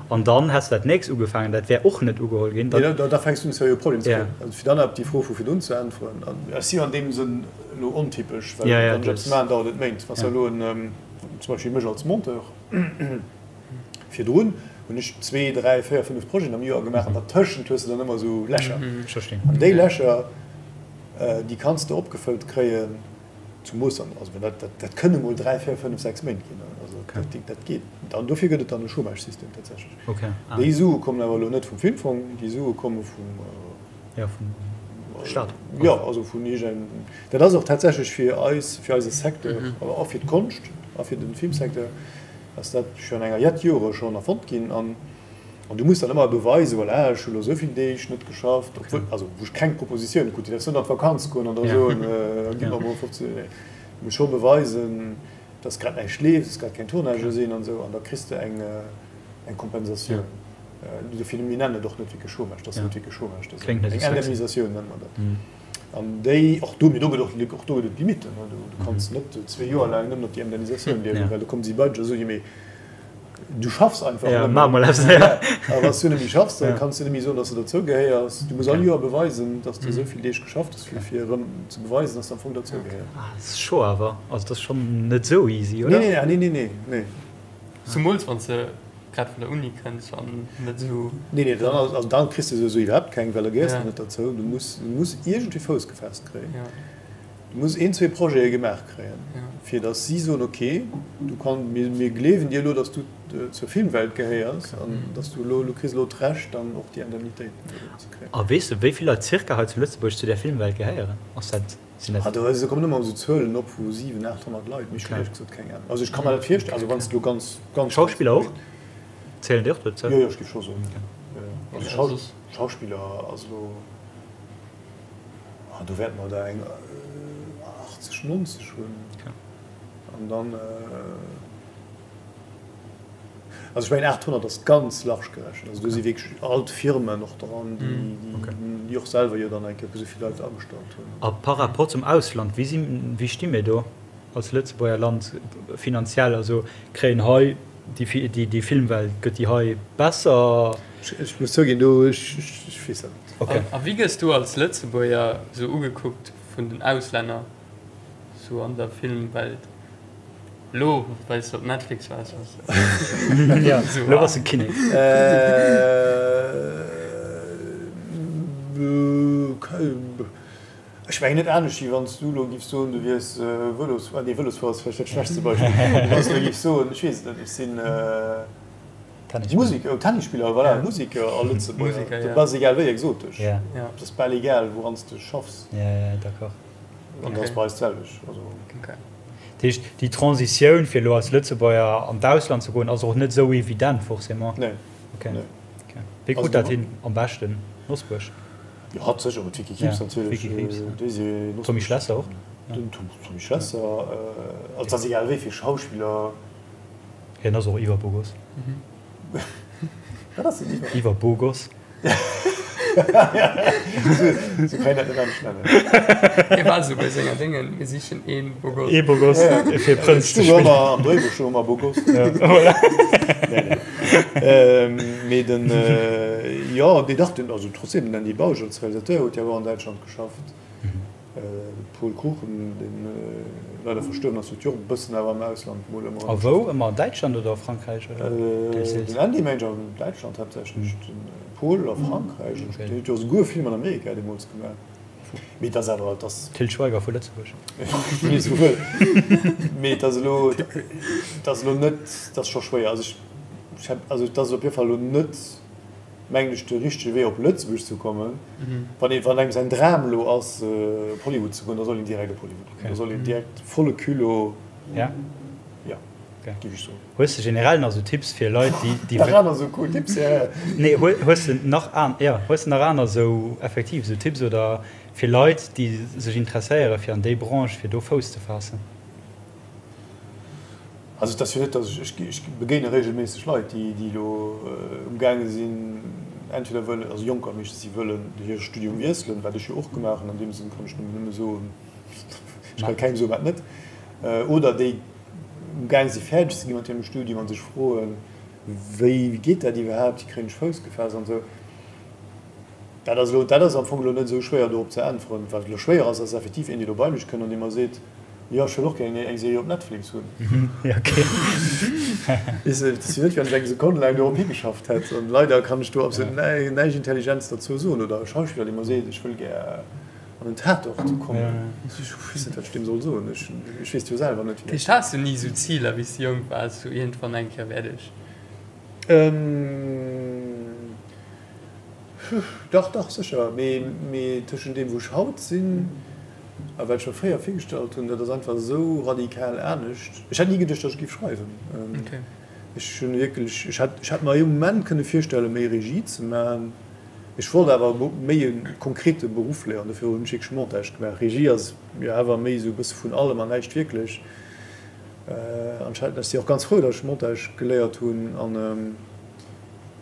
an dann häss de dat nächst ugefaangen, dat wär och net ugeholl ginn, dann. Nee, da fänks du un seriö Problemer ze kréien. Also fir dann op déi Fro vu virdrun ze äntweren, an ech si jo an deem Sënn elo ontypesch, well wann ech eppes maachen, dauert et Méint. Wann s de elo en, zum Beispill mech als Monteur, Virdrun hunn ech zwee, dräi, véier, fënnef Projeten am Joer gemaach an dertëschent hues de dann ëmmer esou Lächer. An déi Lächer, déi kanns de opgefëllt kréien. Zumoos dann, also dat, dat, dat kënne mol 3, 4, 5, 6 Méint ginn. Also okay. dat, dat geet. An dofir gëtt et dann e Chômage-System tatsächlech. Okay. Ah. Déi Sue kommen awer elo net vum Filmfong, déi Sue komme vum ja, vum Staat. Ja, also vun iergendengem. Dat ass och tatsächlech fir eis, fir eise Secteur, mhm. awer och fir d'Konscht a fir den Filmsecteur, ass dat schon enger jett Jore schon erfonnt ginn. An An du muss dann ëmmer beweisen, voilà, ech hu lo esou vill Deeg net geschafft, obwuel, also wou ech keng Propositioune krut, déi däerfs net an d'Vakanz goen an da soen, gi mer mol 15, nee, du muss scho beweisen, dass grad näischt leeft, dass grad keng Tournagë sinn an esou, an da kriss de eng eng Kompensatioun. Dofir, mir nennen et och net wierklech Chômage, dat ass net wierklech Chômage, dat ass eng Indemnisatioun nenne mer dat. An déi, och do, mee do gëtt och, och do gëtt et Limitten, du kanns net zwee Joer laang nëmmen op déi Indemnisatioun liewen, well da kommen si bei dech a soen, jo mee Du schaffs einfach ja, net méi. A wann s du net méi schaffs, da kanns du net méi soen, dass du dozou gehéiers. Du muss all Joer beweisen, dass du esou vill Deeg geschafft hues, fir fir erëm ze beweisen, dass du am Fong dozou gehéiers. Ah, dat ass scho awer. Also dat ass schonn net esou easy, oder? Nee, nee, nee, nee, nee. Zumools wann s de grad vun der Uni kënns an net esou. Nee, nee, dann, also dann kriss de souwisou iwwerhaapt keng, well da gehéiers de net derzou. Du muss, du muss iergendwéi Fouss gefaasst kréien. Du muss een, zwee Projete gemaach kréien, fir datt si soen, ok, du kann, mir, mir gleewen dir elo, datt du zur Filmwelt gehéiers an datt du elo, du kriss elo d'Recht dann och déi Indemnitéiten ze kréien. A weess de, wéi vill Leit circa hei zu Lëtzebuerg zu där Filmwelt gehéieren? Ass dat, sinn dat. Ah, do, do kommen ëmmer esou Zuelen op vu 700, 800 Leit, mee ech hunn éierlech gesot keng Ahnung. Also ech ka mer dat virstellen, also wann s de elo ganz, ganz. Schauspiller och? Zielen déi och dozou? Jo, jo, ech géif scho soen, jo, jo. Also Schauspiller ass elo. Ah, do wäerte mer der eng 80, 90 hunn. An dann, also ech mengen 800 ass ganz large gerechent. Also do si wierklech all d'Firmen och dran, déi och selwer jo dann eng Kéier esou vill Leit agestallt hunn. A par rapport zum Ausland, wéi si, wéi sti mir do als Lëtzebuerger Land finanziell? Also kréien hei déi Filmwelt, gëtt déi hei besser? Ech muss zouginn, do, ech weess dat net. Okay. A wéi gëss du als Lëtzebuerger sou ugekuckt vun den Auslänner sou an der Filmwelt? Lo well s de op Netflix waars, bass de Ja, lo bass de Kinnek. Ech mengen net anescht wéi wann s du lo giffs soen, du wiers Vëlosfuerer, nee Vëlosfuerer ass vläicht dat schlechtste Beispill, wann s du lo giffs soen, ech weess et net, ech sinn Musiker, Tennisspiller, voilà, Musiker a Lëtzebuerger, dat ass egal wéi exotesch, dat ass bal egal wouran s de schaffs. An dat ass bei eis d'selwecht. Dat heescht, déi Transitioun fir elo als Lëtzebuerger an d'Ausland ze goen ass och net esou evident forcément? Nee. Wéi krut dat hin am beschten? Nosbuerg? Jo, hatt sécher, mat Vicky Krieps natierlech. Tommy Schlesser och? Den Tommy Schlesser, also et ass egal wéi vill Schauspiller. Hien ass och iwwer Bogos. Wat ass den iwwer? Iwwer Bogos. Sou kann een dat net anescht nennen. Hie war esou bei senger Déngen, mir sichen ee Bogos. Ee Bogos fir Prënz ze spillen. Am Dréibuch stoung ëmmer Bogos. Voilà. Nee, nee. Mee den, jo, nee dach, den, also trotzdem, den Andy Bausch als Realisateur huet jo awer an Däitschland geschafft. Paul Kruchen, deen leider verstuerwen ass, huet jo och e bëssen awer am Ausland mol ëmmer. A wou? Ëmmer an Däitschland oder a Frankräich oder deels deels? Den Andy mengt an Däitschland haaptsächlech, de Paul a Frankräich. Okay. Deen huet jo esouguer e Film an Amerika deemools gemaach. Mee et ass awer, et ass. Til Schweiger vu Lëtzebuerg. Wien esou wëll. Mee et ass elo, et ass elo net, et ass scho schwéier. Also ech, ech, also et ass op jidde Fall elo net. mengen ech, de richtege Wee op Lëtzebuerg ze kommen. Wann ee, wann engem säin Dram elo ass op Hollywood ze goen, da soll een direkt op Hollywood goen. Da soll een direkt volle Culot, Ja? ja, géif ech soen. Hues de generell nach esou Tipps fir Leit, déi, déi. Nach aner esou cool Tipps, ja, ja. Nee, hues de nach an, ja, hues de nach aner esou effektiv esou Tipps oder fir Leit, déi sech interesséiere fir an déi Branche, fir do Fouss ze faassen? Also et ass jo net, datt ech, ech begéine regelméisseg Leit, déi déi elo umgaange sinn, entweder wëllen, also Jonker meeschtens, déi wëllen hire Studium wiesselen, wat ech jo och gemaach hunn, an deem Sënn kann ech nëmmen nëmme soen, ech kann kengem soen, wat net, oder déi umgaange si fäerdeg ze gi mat hirem Studium a sech froen, wéi geet dat iwwerhaapt, wéi kréien ech Fouss gefaasst an esou. Dat ass elo, dat ass am Fong elo net esou schwéier dorop ze äntweren. Wat elo schwéier ass, ass effektiv een, dee elo bei mech kënnt an dee mer seet, Jo, ech wëll och gär eng Serie op Netflix hunn. Weess de, et ass jo net, wéi wann ech eng Sekonn laang dorop higeschafft hätt. An leider kann ech do absolut näischt Intelligentes derzou soen. Oder e Schauspiller, dee mer seet, ech wëll gär an. An den Tatort kommen. Ech weess net, wat ech deem soll soen. Ech weess et jo selwer net. Dat heescht, has du ni esou Ziler, wéi s du jonk waars, sou iergendwann eng Kéier wäert ech. Dach, dach, sécher. Mee, mee tëschent deem, wou ech haut sinn a wat ech mer fréier virgestallt hunn, dat ass einfach esou radikal anescht. Ech hätt ni geduecht, datt ech géif schreiwen. Ech hunn wierklech, ech hätt, ech hätt mer ee Moment kënne virstellen, méi Regie ze maachen. Ech wollt awer méi e konkrete Beruff léieren, dofir hunn ech wierklech Montage gemaach. Regie ass jo awer méi esou e bësse vun allem an näischt wierklech. An ech ech si och ganz frou, datt ech Montage geléiert hunn an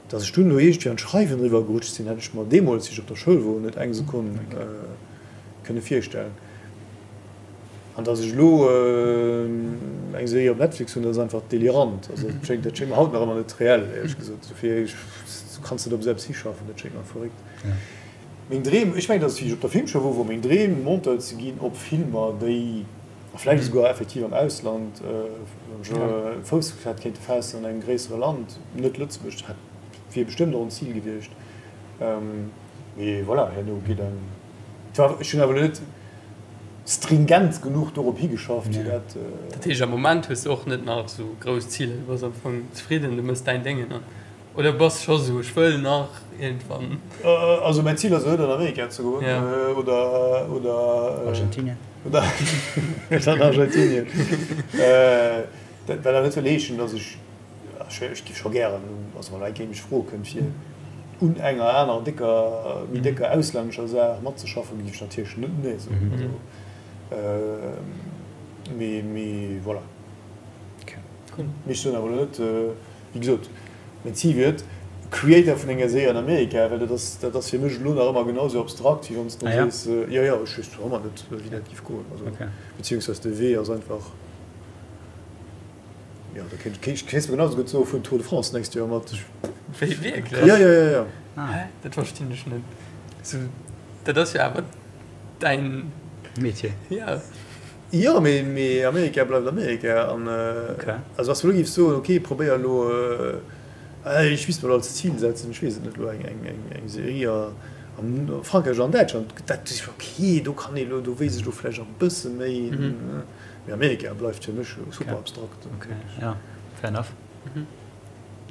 datt ech dunn elo iergendwéi an d'Schreiwen eriwwer gerutscht sinn, hätt ech mer deemools, wéi ech op der Schoul wor, net eng Sekonn kënne virstellen. An dass ech elo eng Serie op Netflix hunn, dat ass einfach delirant. Also dat schéngt, dat schéngt mer haut nach ëmmer net reell, éierlech gesot. Dofir, du kanns net op esou eppes hischaffen, dat schéngt mer verréckt. Meng Dreem, ech mengen, dass wéi ech op der Filmschoul wor, wor meng Dreem, Monteur ze ginn op Filmer, déi, a vläicht esouguer effektiv am Ausland, wann ech Fouss hätt kéinte faassen an engem gréissere Land, net Lëtzebuerg, dat wier bestëmmt och en Zil gewiescht. Mee voilà, herno geet eng. Ech hunn awer elo net stringent genuch dorop higeschafft, fir dat. Dat heescht, am Moment hues de och net nach esou grouss Ziler, du bass am Fong zefridden, du mëss däin Déngen an, oder bass scho sou, ech wëll nach iergendwann. Also mäin Zil ass elo net an Amerika ze goen oder, oder. Argentinien. Oder an Argentinien. Dat wat awer net wëll heeschen, datt ech. Ech giff scho gären, also wann eng Kéier mech froe kënnt fir un enger aner décker, méi décker auslännescher Saach matzeschaffen, giff ech natierlech net nee soen. Also mee, mee voilà. Mee ech soen awer elo net, wéi gesot, mäin Zil wier et, Creator vun enger Serie an Amerika, well dat ass, dat ass fir mech elo nach ëmmer genau sou abstrakt, wéi wann s de mer sees, jo jo, ech weess nach ëmmer net, wéi dat giff goen, also beziehungsweise de Wee ass einfach. Jo, da kéint ech kéints mer genau sou gutt soen, fueren Tour de France d'nächst Joer mat. Wéi, wierklech? Jo, jo, jo, jo. Hä? Dat verstinn ech net. Sou, dat ass jo awer däin. Metier. Ja. Jo, mee, mee Amerika bleift Amerika an. Okay. Also wann s du elo géifs soen, okay, probéier elo, ech misst mer elo als Zil setzen, ech weess et net, elo eng, eng, eng, eng Serie a Frankräich oder an Däitschland, dat, okay, do kann ee elo, do weess ech elo vläicht nach e bësse méi. Mee Amerika bleift fir mech super abstrakt. Ok, ja, fair enough.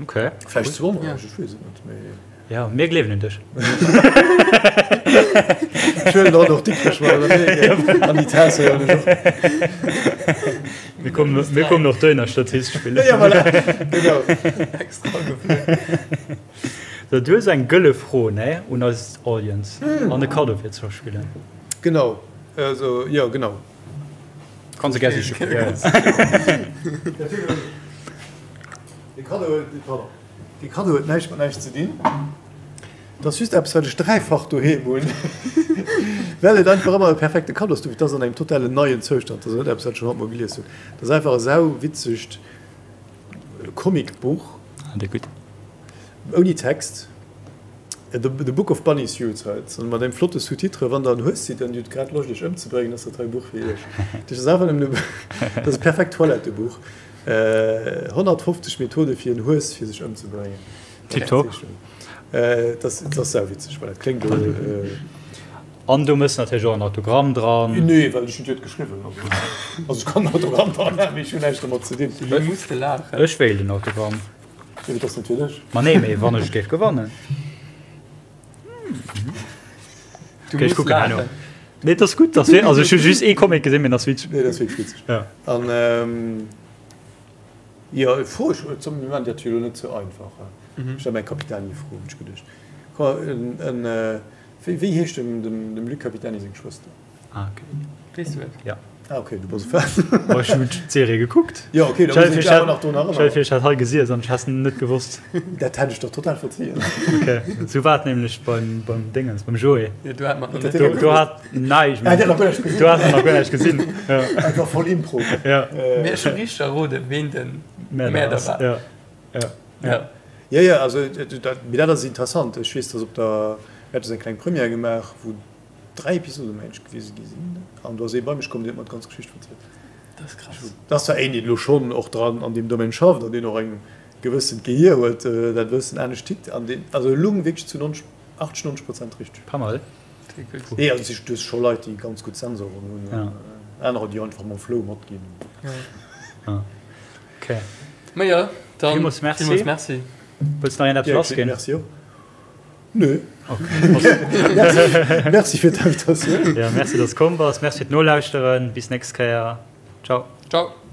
Ok. Vläicht zu Onrecht, ech weess et net, mee. Ja, mir gleewen un dech. Ech huelen dann och Dikrech mat an Amerika, an déi Taass huelen ech och. Mir kommen, mir kommen och dohinner Statist spillen. Ja, voilà, genau. Extra geflunn. So, du hues eng gëlle Fro, ne, un eis Audience an e Kaddo fir ze verspillen. Genau, also, jo, genau. Kanns e gär siche goen. Dee Kaddo huet, pardon, dee Kaddo huet näischt mat näischt ze dinn. Et ass just eppes, wat ech dräifach doheem hunn, well et einfach ëmmer e perfekte Kaddo ass. Et ass an engem totalen neien Zoustand, et ass net eppes, wat ech schonn honnertmol gelies hunn. Et ass einfach e sauwitzegt Comicbuch. Ah, dee gutt. Ouni Text. The Book of Bunny Suicides, an mat engem flotte Sous-titre, Wann der en Hues sidd an Dir hutt grad Loscht iech ëmzebréngen, ass dat hei e Buch fir iech. Dat ass einfach nëmmen e, dat ass e perfekt Toilettebuch. 150 Methode fir en Hues fir sech ëmzebréngen. Tiptop. Dat ass, dat ass sauwitzeg, voilà, dat kléngt elo. An do mëss natierlech och en Autogramm dran. Nee, well ech hunn et geschriwwen. Also ech kann en Autogramm dran maachen, mee ech hunn näischt domat ze dinn. Du muss de laachen. Ech wéilt en Autogramm. Jo, dat ass net fir dech. Ma nee, mee wann ech géif gewannen. Du Okay, ech muss kucken herno. laachen. Nee, dat ass gutt. Das wär, also ech hu just ee Comic gesinn, mee dat ass witzeg. Nee, dat ass wierklech witzeg. Ja. An ähm, jo, Fro, ech, zum Moment, dat jo elo net sou einfach. Ech stelle meng Capitani-Fro, hunn ech geduecht. Komm, en, en, wéi, wéi heescht dem, dem, dem Luc Capitani seng Schwëster? Ah, okay. Weess du et? Ja. Ah, okay, du bass e Fan. Oh, ech hunn d'Serie gekuckt. Jo, okay, da muss ech awer nach drun erënneren. Stell dir vir, ech hätt hei gesiess an ech häss net gewosst. Dat hätt ech der total verzien. Okay, sou war et nämlech beim, beim Dingens, beim Joé. Jo, du hat mer nach net Do, do hat, nein, ech Ah, der hat nach guer näischt gesinn. Do hat en nach guer näischt gesinn. Ja. Einfach voll Impro. Ja. Mee ech hu richteg erroden, ween den Mäerder war. Ja. Ja. Ja. Jo, jo, also, dat, mee dat ass interessant. Ech weess, dass op der, mir hate sou eng kleng Première gemaach, wou 3 Episode mengen ech gewise gi sinn an do ass ee bei mech komm, deen huet mer d'ganz Geschicht verzielt. Dat ass krass. Dat ass zwar een, deen elo schonn och dran an deem Domaine schafft an deen och eng gewëssent Gehier huet, dat e bëssen anescht tickt an deen, also e lung wierklech zu 90, 80, 90 Prozent richteg. Pas mal. Nee, also du hues scho Leit, déi ganz gutt Sensoren hunn, an anerer, déi einfach mam Flow matginn. Okay. Ma jo, dann villmools merci. Villmools merci. Wëlls nach een eppes lassginn? Merci och. Nö. Merci fir d'Invitatioun. Jo, merci, dass s komm bass. Merci fir d'Nolauschteren. Bis nächst Kéier. Ciao. Ciao.